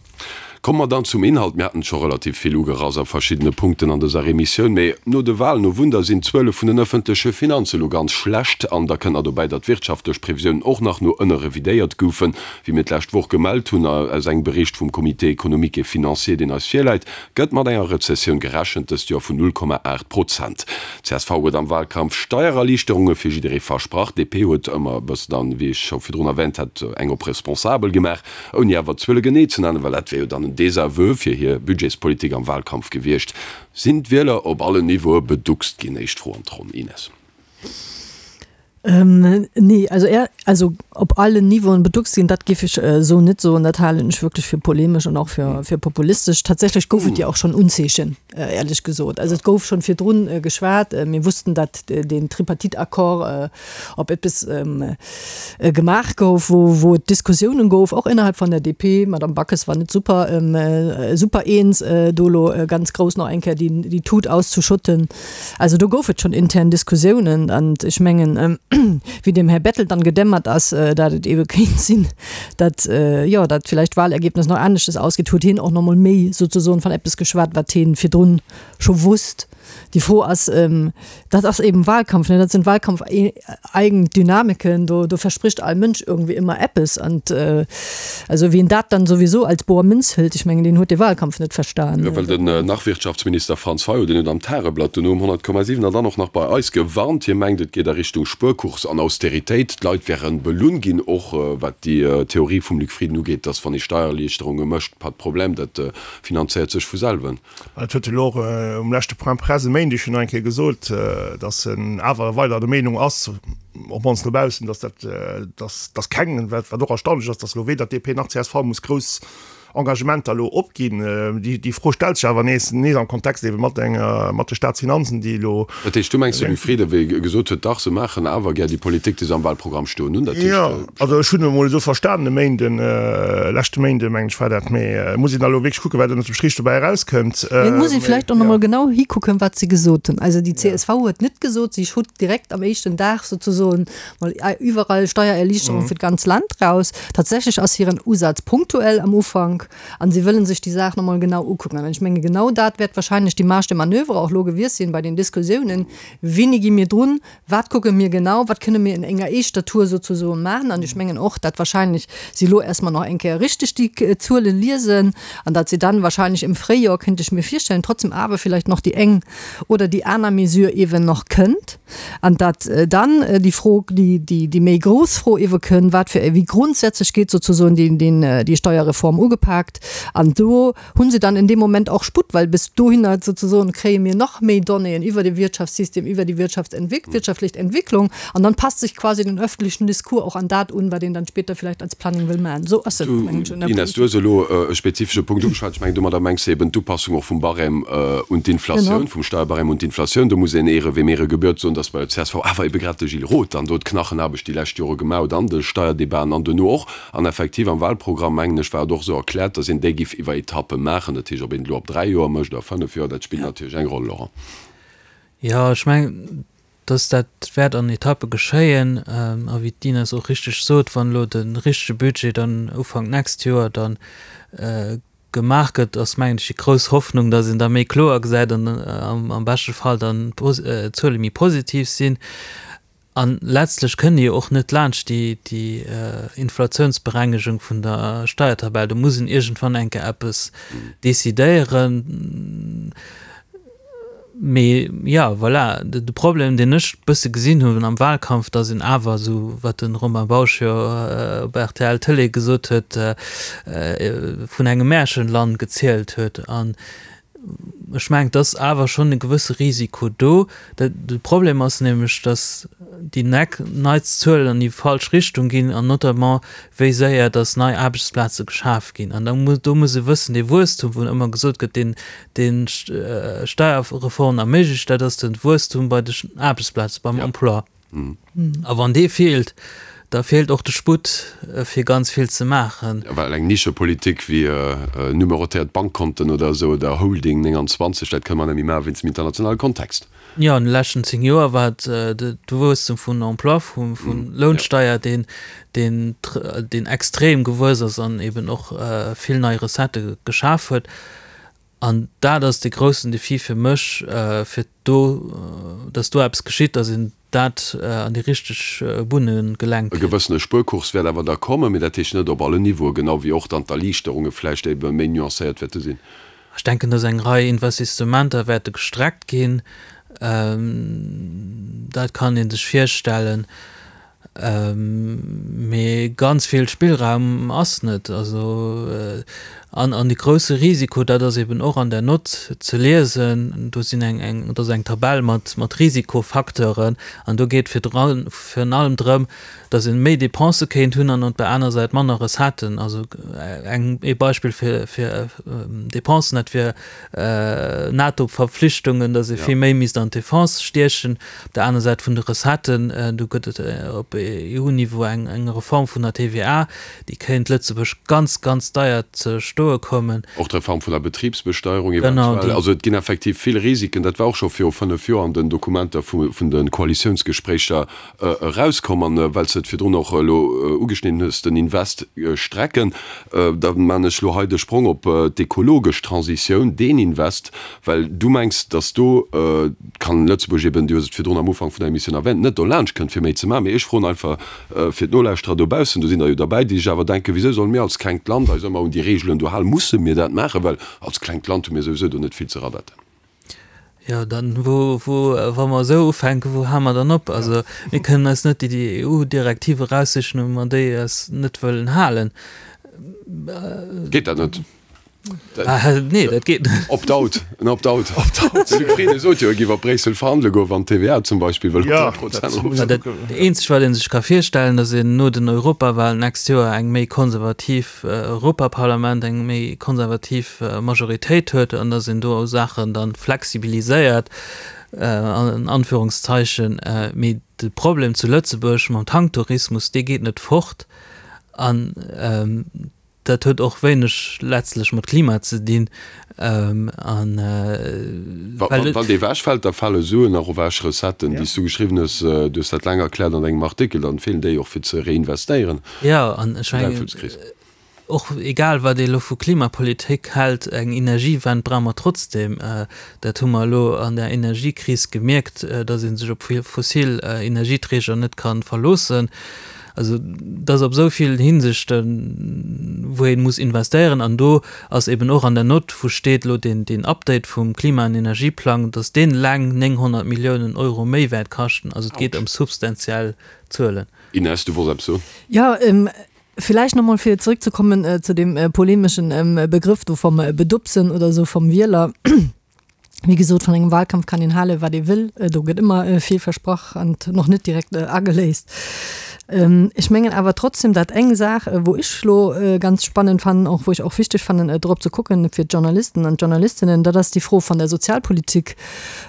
Komme mer dann zum Inhalt. Mir haten et scho relativ vill ugerass a verschiddene Punkten an dëser Emissioun, mee no de Wahlen, oh Wunder, sinn d'Zuele vun den ëffentleche Finanze elo ganz schlecht. An da kënnt nach dobäi, datt d'wirtschaftlech Previsiounen och nach no ënne revidéiert goufen, wéi mir d'lescht Woch gemellt hunn. Aus engem Bericht vum Comité économique et financier, deen eis virläit, Gëtt mat enger Rezessioun gerechent, dëst Joer vun 0,8 Prozent. Csv huet am Wahlkampf Steiererliichterunge fir jidderee versprach, DP huet ëmmer e bëssen dann, wéi ech scho virdrun erwähnt hat, eng op responsabel gemaach, ouni awer d'Zuele genee ze nennen, well dat wär jo dann en Désaveu fir hir Budgetspolitik am Wahlkampf gewiescht. Sinn d'Wieler op allen Niveaue beduckst ginn? Éischt Fro an d'Ronn, Ines. Nee, also är, also op allen Niveauen beduckst ginn, dat géif ech esou net soen. Dat halen ech wierklech fir polemesch an och fir, fir populistesch. Tatsächlech gouf et jo och schonn Unzeechen, éierlech gesot. Also et gouf schonn virdrun geschwat. Mir wussten, datt deen Tripartite-Accord op eppes gemaach gouf, wou, wou et Diskussiounen gouf, och innerhalb vun der DP. D'Madame Backes war net super, super eens, do elo ganz grouss nach eng Kéier déi, déi Tut auszuschotten. Also do gouf et schonn intern Diskussiounen an ech mengen, wéi dem Här Bettel dann gedämmert ass, dat et eebe kéint sinn, dat, jo, dat villäicht d'Wahlergebnis nach aneschtes ausgeet, huet hien och nach emol méi souzesoen van eppes geschwat, wat hien virdrun scho wusst. Déi Fro ass, dat ass eeben Wahlkampf, ne, dat sinn Wahlkampfeigen Dynamiken, do, do verspricht all Mënsch irgendwie ëmmer eppes an also wien dat dann sowieso als boer Münz hëlt, ech mengen, deen huet de Wahlkampf net verstan. Jo, well den Nach-Wirtschaftsminister Franz Fayot, deen huet am Tageblatt, duerno um 100,7 an dann och nach bei eis gewarnt. Hie mengt, et geet a Richtung Spuerkurs an Austeritéit. D'Leit wäre belunn ginn, och wat déi Theorie vum Luc Frieden ugeet, datt wann ee Steiererliichterunge mécht, pas de problème, dat finanzéiert sech vu selwen. Dat huet e lo och um leschte Point presse e Méindeg jo nach eng Kéier gesot, datt en awer weider der Meenung ass, op mannst no baussen, datt dat, datt, datt keng, wat och erstaunlech ass, datt elo weder DP nach csv muss grouss Engagementer elo opginn. Déi, déi Fro stellt sech awer nees, nees am Kontext eebe mat enger, mat de Staatsfinanzen, déi elo. Dat heescht, du mengs, de Luc Frieden, wéi e gesot huet, dach, se maachen awer gär déi Politik, déi se am Wahlprogramm stoen hunn, dat heescht. Jo, also ech hunn emol esou verstanen e Méinden, leschte Méinde mengen ech war dat, mee et muss een da elo wierklech kucken, wat ënnert dem Strich dobäi erauskënnt. Mee et muss ee vläicht och nach emol genau hikucken, wat se gesot hunn. Also déi csv huet net gesot, si hutt direkt am éischten Dag souzesoen mol iwwerall Steiererliichterung fir d'ganz Land raus. Tatsächlech ass hiren Usaz punktuell am Ufank an si wëllen sech déi Saach nach emol genau ukucken. An ech menge genau dat wäert wahrscheinlech déi Marge de manoeuvre och elo gewiescht sinn bei den Diskussiounen, Wéini gi mir drun, Wat kucke mir genau, wat kënne mir in enger éischter Tour souzesoen maachen? An ech mengen och, dat wahrscheinlech si elo erst mol nach eng Kéier richteg déi Zuele liesen an dat si dann wahrscheinlech im Fréijoer, kéint ech mir virstellen, trotzdem awer vielleicht nach déi eng oder déi aner Mesure eeben nach kënnt an dat dann déi Fro, déi, déi, déi méi grouss Fro eebe kënn, wat fir, wéi grundsätzlech gétt souzesoen déi, déi Steuerreform ugepak. upaakt. An do hu se dann in deem Moment och Sputt, well bis dohinner sozesoen kréie mir nach méi Donnéeën iwwer de Wirtschaftssystem, iwwer déi Wirtschaftsentwéck, wirtschaftlech Entwicklung. An dann passt sich quasi den öffentlichen Discours och an dat un, wat een dann später vielleicht als Planning wëll maachen. Esou ass et, mengen ech, an der Ines, du hues elo e spezifesche Punkt ugeschwat. Ech mengen, domadder mengs de eben d'Upassung och vum Barème un d'Inflatioun, vum Steierbarème un d'Inflatioun. Do muss een Ehre wem Ehre gebührt soen, dass bei der csv awer ebe grad de Gilles Roth dann do d'Knachenaarbecht déi lescht Jore gemaach huet an de Steierdebaten an duerno och. An effektiv am Wahlprogramm, mengen ech, war et och esou erkläert, dass een déi giff iwwer Etappe maachen. Dat heescht, ob een et elo op 3 Joer mécht oder 5 Joer, dat spillt natierlech eng Roll, Laurent. Jo, ech mengen, dass dat wäert an Etappe geschéien. A wéi d'Ines och richteg sot, wann elo de richtege Budget dann Ufank d'nächst Joer dann gemaach gëtt, ass mengen ech déi grouss Hoffnung, dass een da méi kloer gesäit an am beschte Fall dann d'Zuele méi positiv sinn. A letztlech kënnt ee jo och net laanscht déi Inflatiounsberengegung vun der Steiertabell. Do muss een iergendwann eng Kéier eppes decidéieren. Mee jo, voilà, de Problem, deen ech e bësse gesinn hunn am Wahlkampf, datt een awer, esou wat de Romain Bausch jo op rtl Tëlee gesot huet, vun engem Märchenland gezielt huet. An ech mengen, et ass awer schonn e gewësse Risiko do. De Problem ass nämlech, datt déi neits Zuelen an déi falsch Richtung ginn, an notamment wéi séier datt nei Aarbechtsplaze geschaf ginn. An do muss ee wëssen, dee Wuesstum, wou ëmmer gesot gëtt, deen deen d'Steierreform erméiglecht, dat ass de Wuesstum bei de Aarbechtsplaze, beim Emploi. A wann dee feelt, da feelt och de Sputt, fir ganz vill ze maachen. Well eng Nischepolitik wéi numerotéiert Bankkonten oder esou oder Holding 29, dat kënne mer net méi maache wéinst dem internationale Kontext. Jo, an de leschten 10 Joer war et de Wuesstum vun Emploi, vun Lounsteier, deen deen extrem gewuess ass an eben och vill nei Recettë geschaf huet. An dat ass de groussen Defi fir mech, fir do, dass do eppes geschitt, dass een dat an déi richteg Bunne gelenkt E kritt. gewëssene Spuerkurs wäert awer da kommen, mee dat heescht net op allen Niveauen, genau wéi och dann d'Erliichterunge vläicht ebe méi nuancéiert wäerte sinn. Ech denken, dass eng Rei Investissementer wäerte gestreckt ginn. Dat kann ee sech virstellen. Mee ganz vill Spillraum ass net. Also, an, an de grousse Risiko, dat ass eben och an der Nott ze liesen, do sinn eng, eng, do ass eng Tabell mat, mat Risikofacteuren an do geet virun allem drëm, datt ee méi Depensë kéint hunn an op der aner Säit manner Recetten. Also eng, ee Beispill fir, fir Depensen, dat wier NATO-Verpflichtungen, datt ee vill méi misst an d'Defense stiechen. Op der aner Säit vun de Recetten, do gëtt et op EU-Niveau eng Reform vun der TVA, déi kéint Lëtzebuerg ganz, ganz deier ze stoe kommen. Och d'Reform vun der Betribsbesteierung eventuell. Also et ginn effektiv vill Risiken. Dat war och scho viru 5 Joer an den Dokumenter vun de Koalitiounsgespréicher erauskomm. An well s de et virdrun och elo ugeschnidden hues, den Invest strecken, da man ech elo hei de Sprong op d'ekologesch Transitioun, deen Invest, well du mengs, datt do, kann Lëtzebuerg eben, du hues et virdrun am Ufank vun der Emissioun erwähnt, net dolaanscht kënnt fir méi ze maachen. Mee ech froen einfach fir d'Nolauschterer dobaussen, do sinn der jo derbäi, déi sech awer denken, Wisou solle mir als klengt Land eis ëmmer un déi Reegelen do halen? Musse mir dat maachen? Well als klengt Land hu mir souwisou do net vill ze radetten. Jo, dann, wou, wou, wa mer esou ufänken, wou hale mer dann op? Also mir kënnen eis net déi EU-Direktive eraussichen, wa mer déi eis net wëllen halen. Geet dat net? Nee, dat geet net. Opt-out, en Opt-out. De Luc Frieden sot jo, e géif op Bréissel verhandele goen, wann d'TVA zum Beispill wëll op 3 Prozent erof. Dat eenzegt, wat ee sech ka virstellen, datt een no den Europawahlen d'nächst Joer eng méi konservativ Europaparlament, eng méi konservativ Majoritéit huet an datt een do Saachen da flexibiliséiert, an Anführungszeichen. Mee de Problem zu Lëtzebuerg mam Tanktourismus, dee geet net fort. An Dat huet och wéineg letztlech mat Klima ze dinn. An Wann dee ewechfält, da fale Suen och ewech, Recetten, déi s du geschriwwen hues, du hues dat laang erkläert an engem Artikel, dann feelen déi och fir ze reinvestéieren. Jo, an ech mengen, och egal wat ee elo vu Klimapolitik hält, eng Energiewend brauche mer trotzdem. Dat hu mer elo an der Energiekris gemierkt, datt ee sech op fossil Energieträger net ka verloossen. Also et ass op esou villen Hinsichten, wou ee muss investéieren. An do ass eben och an der Nott, wou steet elo deen, deen Update vum Klima an Energieplang, datt deen eleng 900 Milliounen Euro méi wäert kaschten. Also et geet ëm substantiell Zuelen. Inès, du wolls eppes soen? Jo. Villäicht nach mol fir zrëckzekommen zu deem polemeschen Begrëff do vom Bedupsen oder esou vom Wieler. Wéi gesot, vun engem Wahlkampf kann een hale wat ee wëll. Do gëtt ëmmer vill versprach an och net direkt ageléist. Ech mengen awer trotzdem, dat eng Saach, wou ech elo ganz spannend fannen, och wou ech och wichteg fannen drop ze kucken fir d'Journalisten an d'Journalistinnen, dat ass déi Fro vun der Sozialpolitik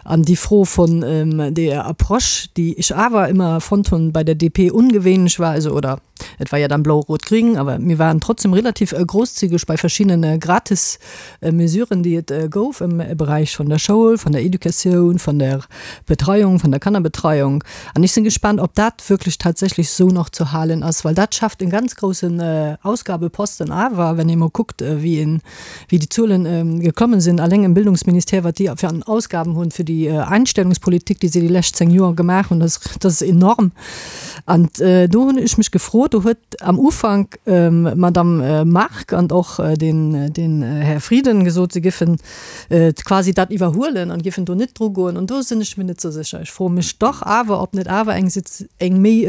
an déi Fro vun deeër Approche, déi ech awer ëmmer fonnt hunn bei der DP ungewéinlech war, also oder Et war ja dann blau-rot-gring, awer mir waren trotzdem relativ großzügig bei verschiddene gratis Mesuren, déi et gouf am Beräich vun der Schoul, vun der Educatioun, vun der Betreiung, vun der Kannerbetreiung. An ech sinn gespaant, ob dat wierklech tatsächlech esou nach ze halen ass, well dat schafft e ganz groussen Ausgabeposten. Awer wenn ee mol kuckt, wéi een, wéi déi Zuelen geklommen sinn, alleng im Bildungsministère, wat déi fir an Ausgaben hunn fir déi Einstellungspolitik, déi se déi lescht 10 Joer gemaach hunn, dat ass enorm. An do hunn ech mech gefrot, do huet am Ufank d'Madame Margue an och den, den Här Frieden gesot, se giffen quasi dat iwwerhuelen an giffen do net drugoen. An do sinn ech mir net esou sécher. Ech froe mech dach awer, ob net awer eng, eng méi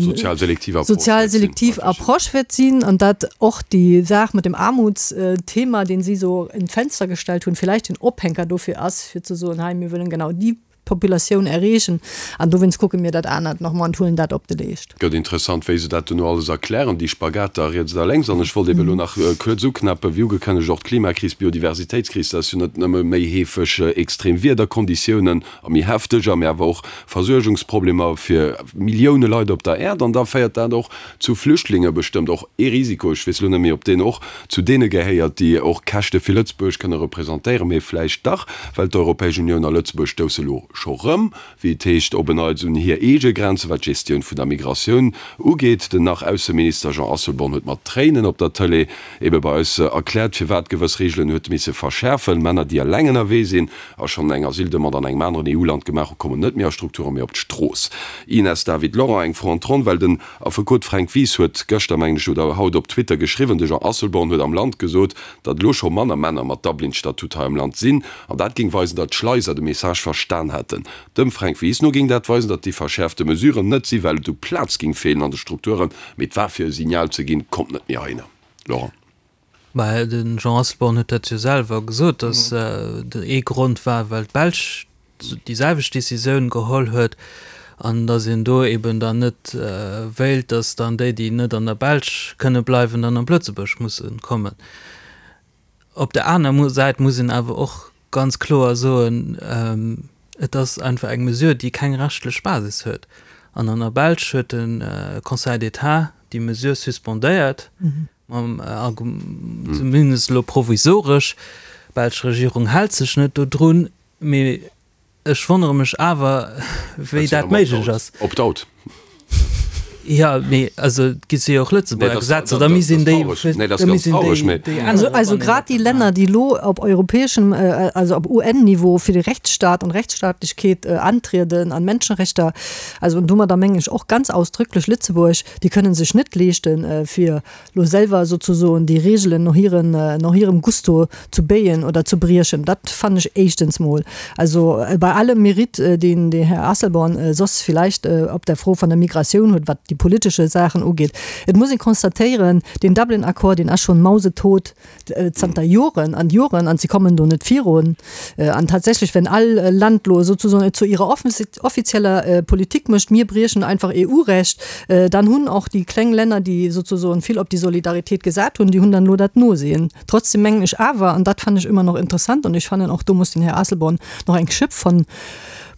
sozial selektiv Approche sozial selektiv Approche wäert sinn an dat och déi Saach mat dem Aarmutsthema, deen si esou in d'Fenster gestellt hunn, villäicht den Ophänker dofir ass, fir ze soen, hei mir wëllen genau déi Populatioun erreechen an dowéinst kucke mir dat anert nach mol an huelen dat op de Leescht. Gëtt interessant, wéi se dat duerno alles erklären, déi Spagater riets a lénks. An ech wollt eben elo nach kuerz uknäppen, wéi ugekënnegt, och d'Klimakris, d'Biodiversitéitskris, dat ass jo net nëmme méi heefeg extrem Wiederkonditiounen a méi hefteger, mä awer och Versuergungsproblemer fir Millioune Leit op der Äerd. An da féiert dat och zu Flüchtlinge, bestëmmt och ee Risiko, ech weess elo net méi, ob deen och zu deene gehéiert, déi och Käschte fir Lëtzebuerg kënne representéieren, mee vläicht dach, well d'Europäesch Unioun a Lëtzebuerg stousse elo scho rëm, wéi et heescht, op en Neits un hir eege Grenzen, wat d'Gestioun vun der Migratioun ugeet. Den Nach-Ausseminister Jean Asselborn huet mat Tréinen op der Tëlee ebe bei eis erkläert, firwat gewëss Reegelen huet misse verschäerfen. Männer, déi eleng ënnerwee sinn a schonn eng Asyldemande an engem aneren EU-Land gemaach hu, kommen net méi a Strukturen, mee op d'Strooss. Ines David Laurent, Eng Fro an d'Ronn, well den Affekot Fränk Wies huet gëschter, mengen ech, oder haut op Twitter geschriwwen, de Jean Asselborn huet am Land gesot, datt elo scho manner Männer mat Dublin-Statut hei am Land sinn, an dat géing weisen, datt d'Schleiser de Message verstan hätten. Dem Fränk Wies no géing dat weisen, datt déi verschäerfte Mesuren net si well et u Plaz géing feelen an de Strukturen, mee et war fir e Signal ze ginn, kommt net méi heihinner. Laurent. Mä de Jean Asselborn huet dat jo selwer gesot, datt ee Grond war, well d'Belsch déi selwecht Décisioun geholl huet an datt een do eben dann net wéilt, datt dann déi, déi net an der Belsch kënne bleiwen, dann op Lëtzebuerg musse kommen. Op der aner Säit muss een awer och ganz kloer soen, et ass einfach eng Mesure, déi keng rechtlech Basis huet. An an der Belsch huet de Conseil d'État déi Mesure suspendéiert. Mam Argument, zumindest elo provisoresch, d'belsch Regierung hält sech net dodrun, mee ech wonnere mech awer, wéi dat méiglech ass. Opt-out. Jo, mee also et gi si jo och Lëtzebuerger Gesetzer, da misst een déi, da misst een déi, déi änneren. Also grad déi Länner, déi elo op europäeschem, also op UN-Niveau fir de Rechtsstaat an Rechtsstaatlechkeet antrieden an Menschenrechter, also an domadder mengen ech och ganz ausdrücklech Lëtzebuerg, Déi kënnen sech net leeschten, fir lo selwer souzesoen déi Regeln no hiren, no hirem Gusto zu béien oder zu briechen. Dat fannen ech éischtens mol. Also bei allem Mérite, deen de Här Asselborn soss villäicht op der Fro vun der Migratioun huet, wat déi politesche Saachen ugeet, et muss ee constatéieren, deen Dublin-Accord, deen ass schonn mausetot. zanter Joren an Joren an si kommen do net virun. An tatsächlech, wenn all Land lo sozusagen et zu ihrer offizieller Politik mécht, mir briechen einfach EU-Recht, dann hunn och déi kleng Länner, déi sozusagen vill op déi Solidaritéit gesat hunn, déi hunn dann elo dat Nosehen. Trotzdem mengen ech awer, an dat fannen ech ëmmer nach interessant, an ech fannen och do muss den Här Asselborn nach eng Schëpp von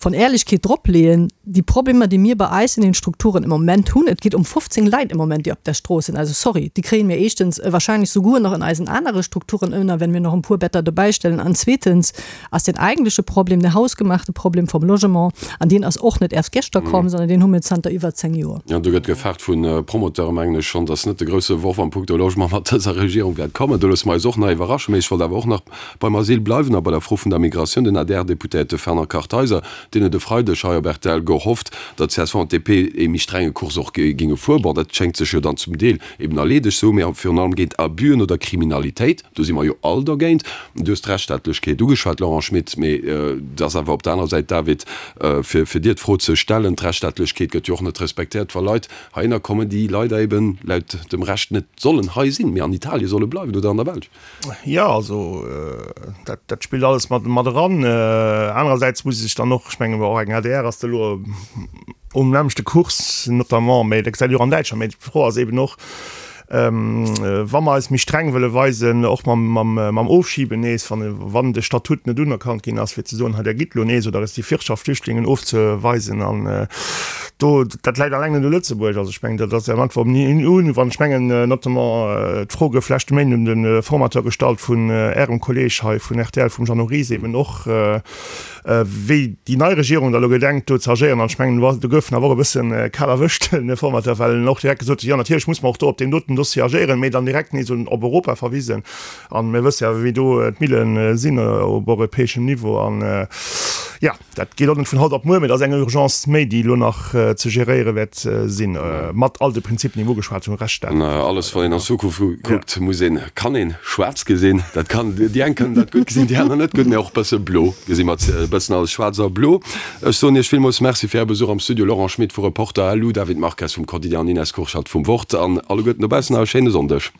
von Ehrlichkeet drop leeën, déi Problemer, déi mir bei eis in den Strukturen im Moment hunn, et geet ëm 15 Leit im Moment, déi op der Strooss sinn, also sorry, déi kréie mir éischtens wahrscheinlech souguer nach in eisen anere Strukturen ënner, wenn mir nach en puer Better dobäistellen, an zweetens ass den eigentleche Problem, den hausgemachte Problem vom Logement, an deen ass och net erst geschter komm, sondern deen hu mir zanter iwwer 10 Joer. Jo, do gëtt gefaart vu Promoteure, mengen ech schonn, dass net de grousse Worf am punkto Logement mat dëser Regierung wäert kommen. Do loosse mer eis och nach iwwerraschen. Mee ech wollt awer och nach beim Asyl bleiwen a bei der Fro vun der Migratioun. Den ADR-Deputéierte Fernand Kartheiser. Deen huet e Freideg hei op rtl gehofft, datt csv an d'DP ee méi strenge Kurs och géinge fueren. Bon, dat schéngt sech jo dann zum Deel eben erleedegt ze hunn, mee virun allem géint Abüen oder Kriminalitéit, do si mer jo all dergéint. Du hues d'Rechtsstaatlechkeet ugeschwat, Laurent Schmit, mee et ass awer op der anerer Säit, David, fir fir dir d'Fro ze stellen, D'Rechtsstaatlechkeet gëtt jo och net respektéiert, wa Leit heihinner kommen, déi leider eben laut dem Recht net sollen hei sinn, mee an Italien solle bleiwen oder an der Belsch. Jo, also dat, dat spillt alles mat, mat eran. Anerersäits muss ee sech dann och, ech menge och eng adr ass da elo um nämmlechte Kurs notamment, mä dat gesäit ee jo och an Däitschland. Mä d'Fro ass eben och, wa mer eis méi streng wëlle weisen, och mam, mam, mam Ofschiben nees, wann, wann de Statut net unerkannt ginn ass, fir ze soen, hei der gitt elo nees, oder respektiv Wirtschaftsflüchtlingen ofzeweisen an do, dat läit alleng net u Lëtzebuerg. Also ech mengen, dat ass am Antwort un, wann ech mengen, notamment d'Fro gouf leschte Méinden un de Formateur gestallt vun Ärem Kolleeg hei vun rtl, vum Jeannot Ries eben och, wéi déi nei Regierung da elo gedenkt do ze agéieren. An ech mengen, do gouf en awer och e bësse kal erwëscht, den Formateur, well en och direkt gesot huet, jo natierlech muss mer och do op deem doten Dossier agéieren, mee dann direkt nees un op Europa verwisen. An mir wësse jo, wéi do d'Mille sinn op europäeschem Niveau. An jo. Dat geet och net vun haut op muer, mee dat ass eng Urgence méi, déi elo nach ze geréiere wäert sinn, mat all de Prinzipien, déi mir ugeschwat hunn, Rechtsstaat. An alles, wann een an d'Zukunft kuckt, muss een, kann een schwaarz gesinn. Dat kann, déi eng kënnen dat gutt gesinn, déi aner net gutt, mee och e bësse blo gesi mer, e bëssen alles schwaarz a blo. Ech soen Iech villmools Merci fir Är Besuch am Studio, Laurent Schmit vu Reporter, LU, David Marques vum Quotidien an Ines Kurschat vum Wort. An alleguerten dobaussen nach e schéine Sonndeg.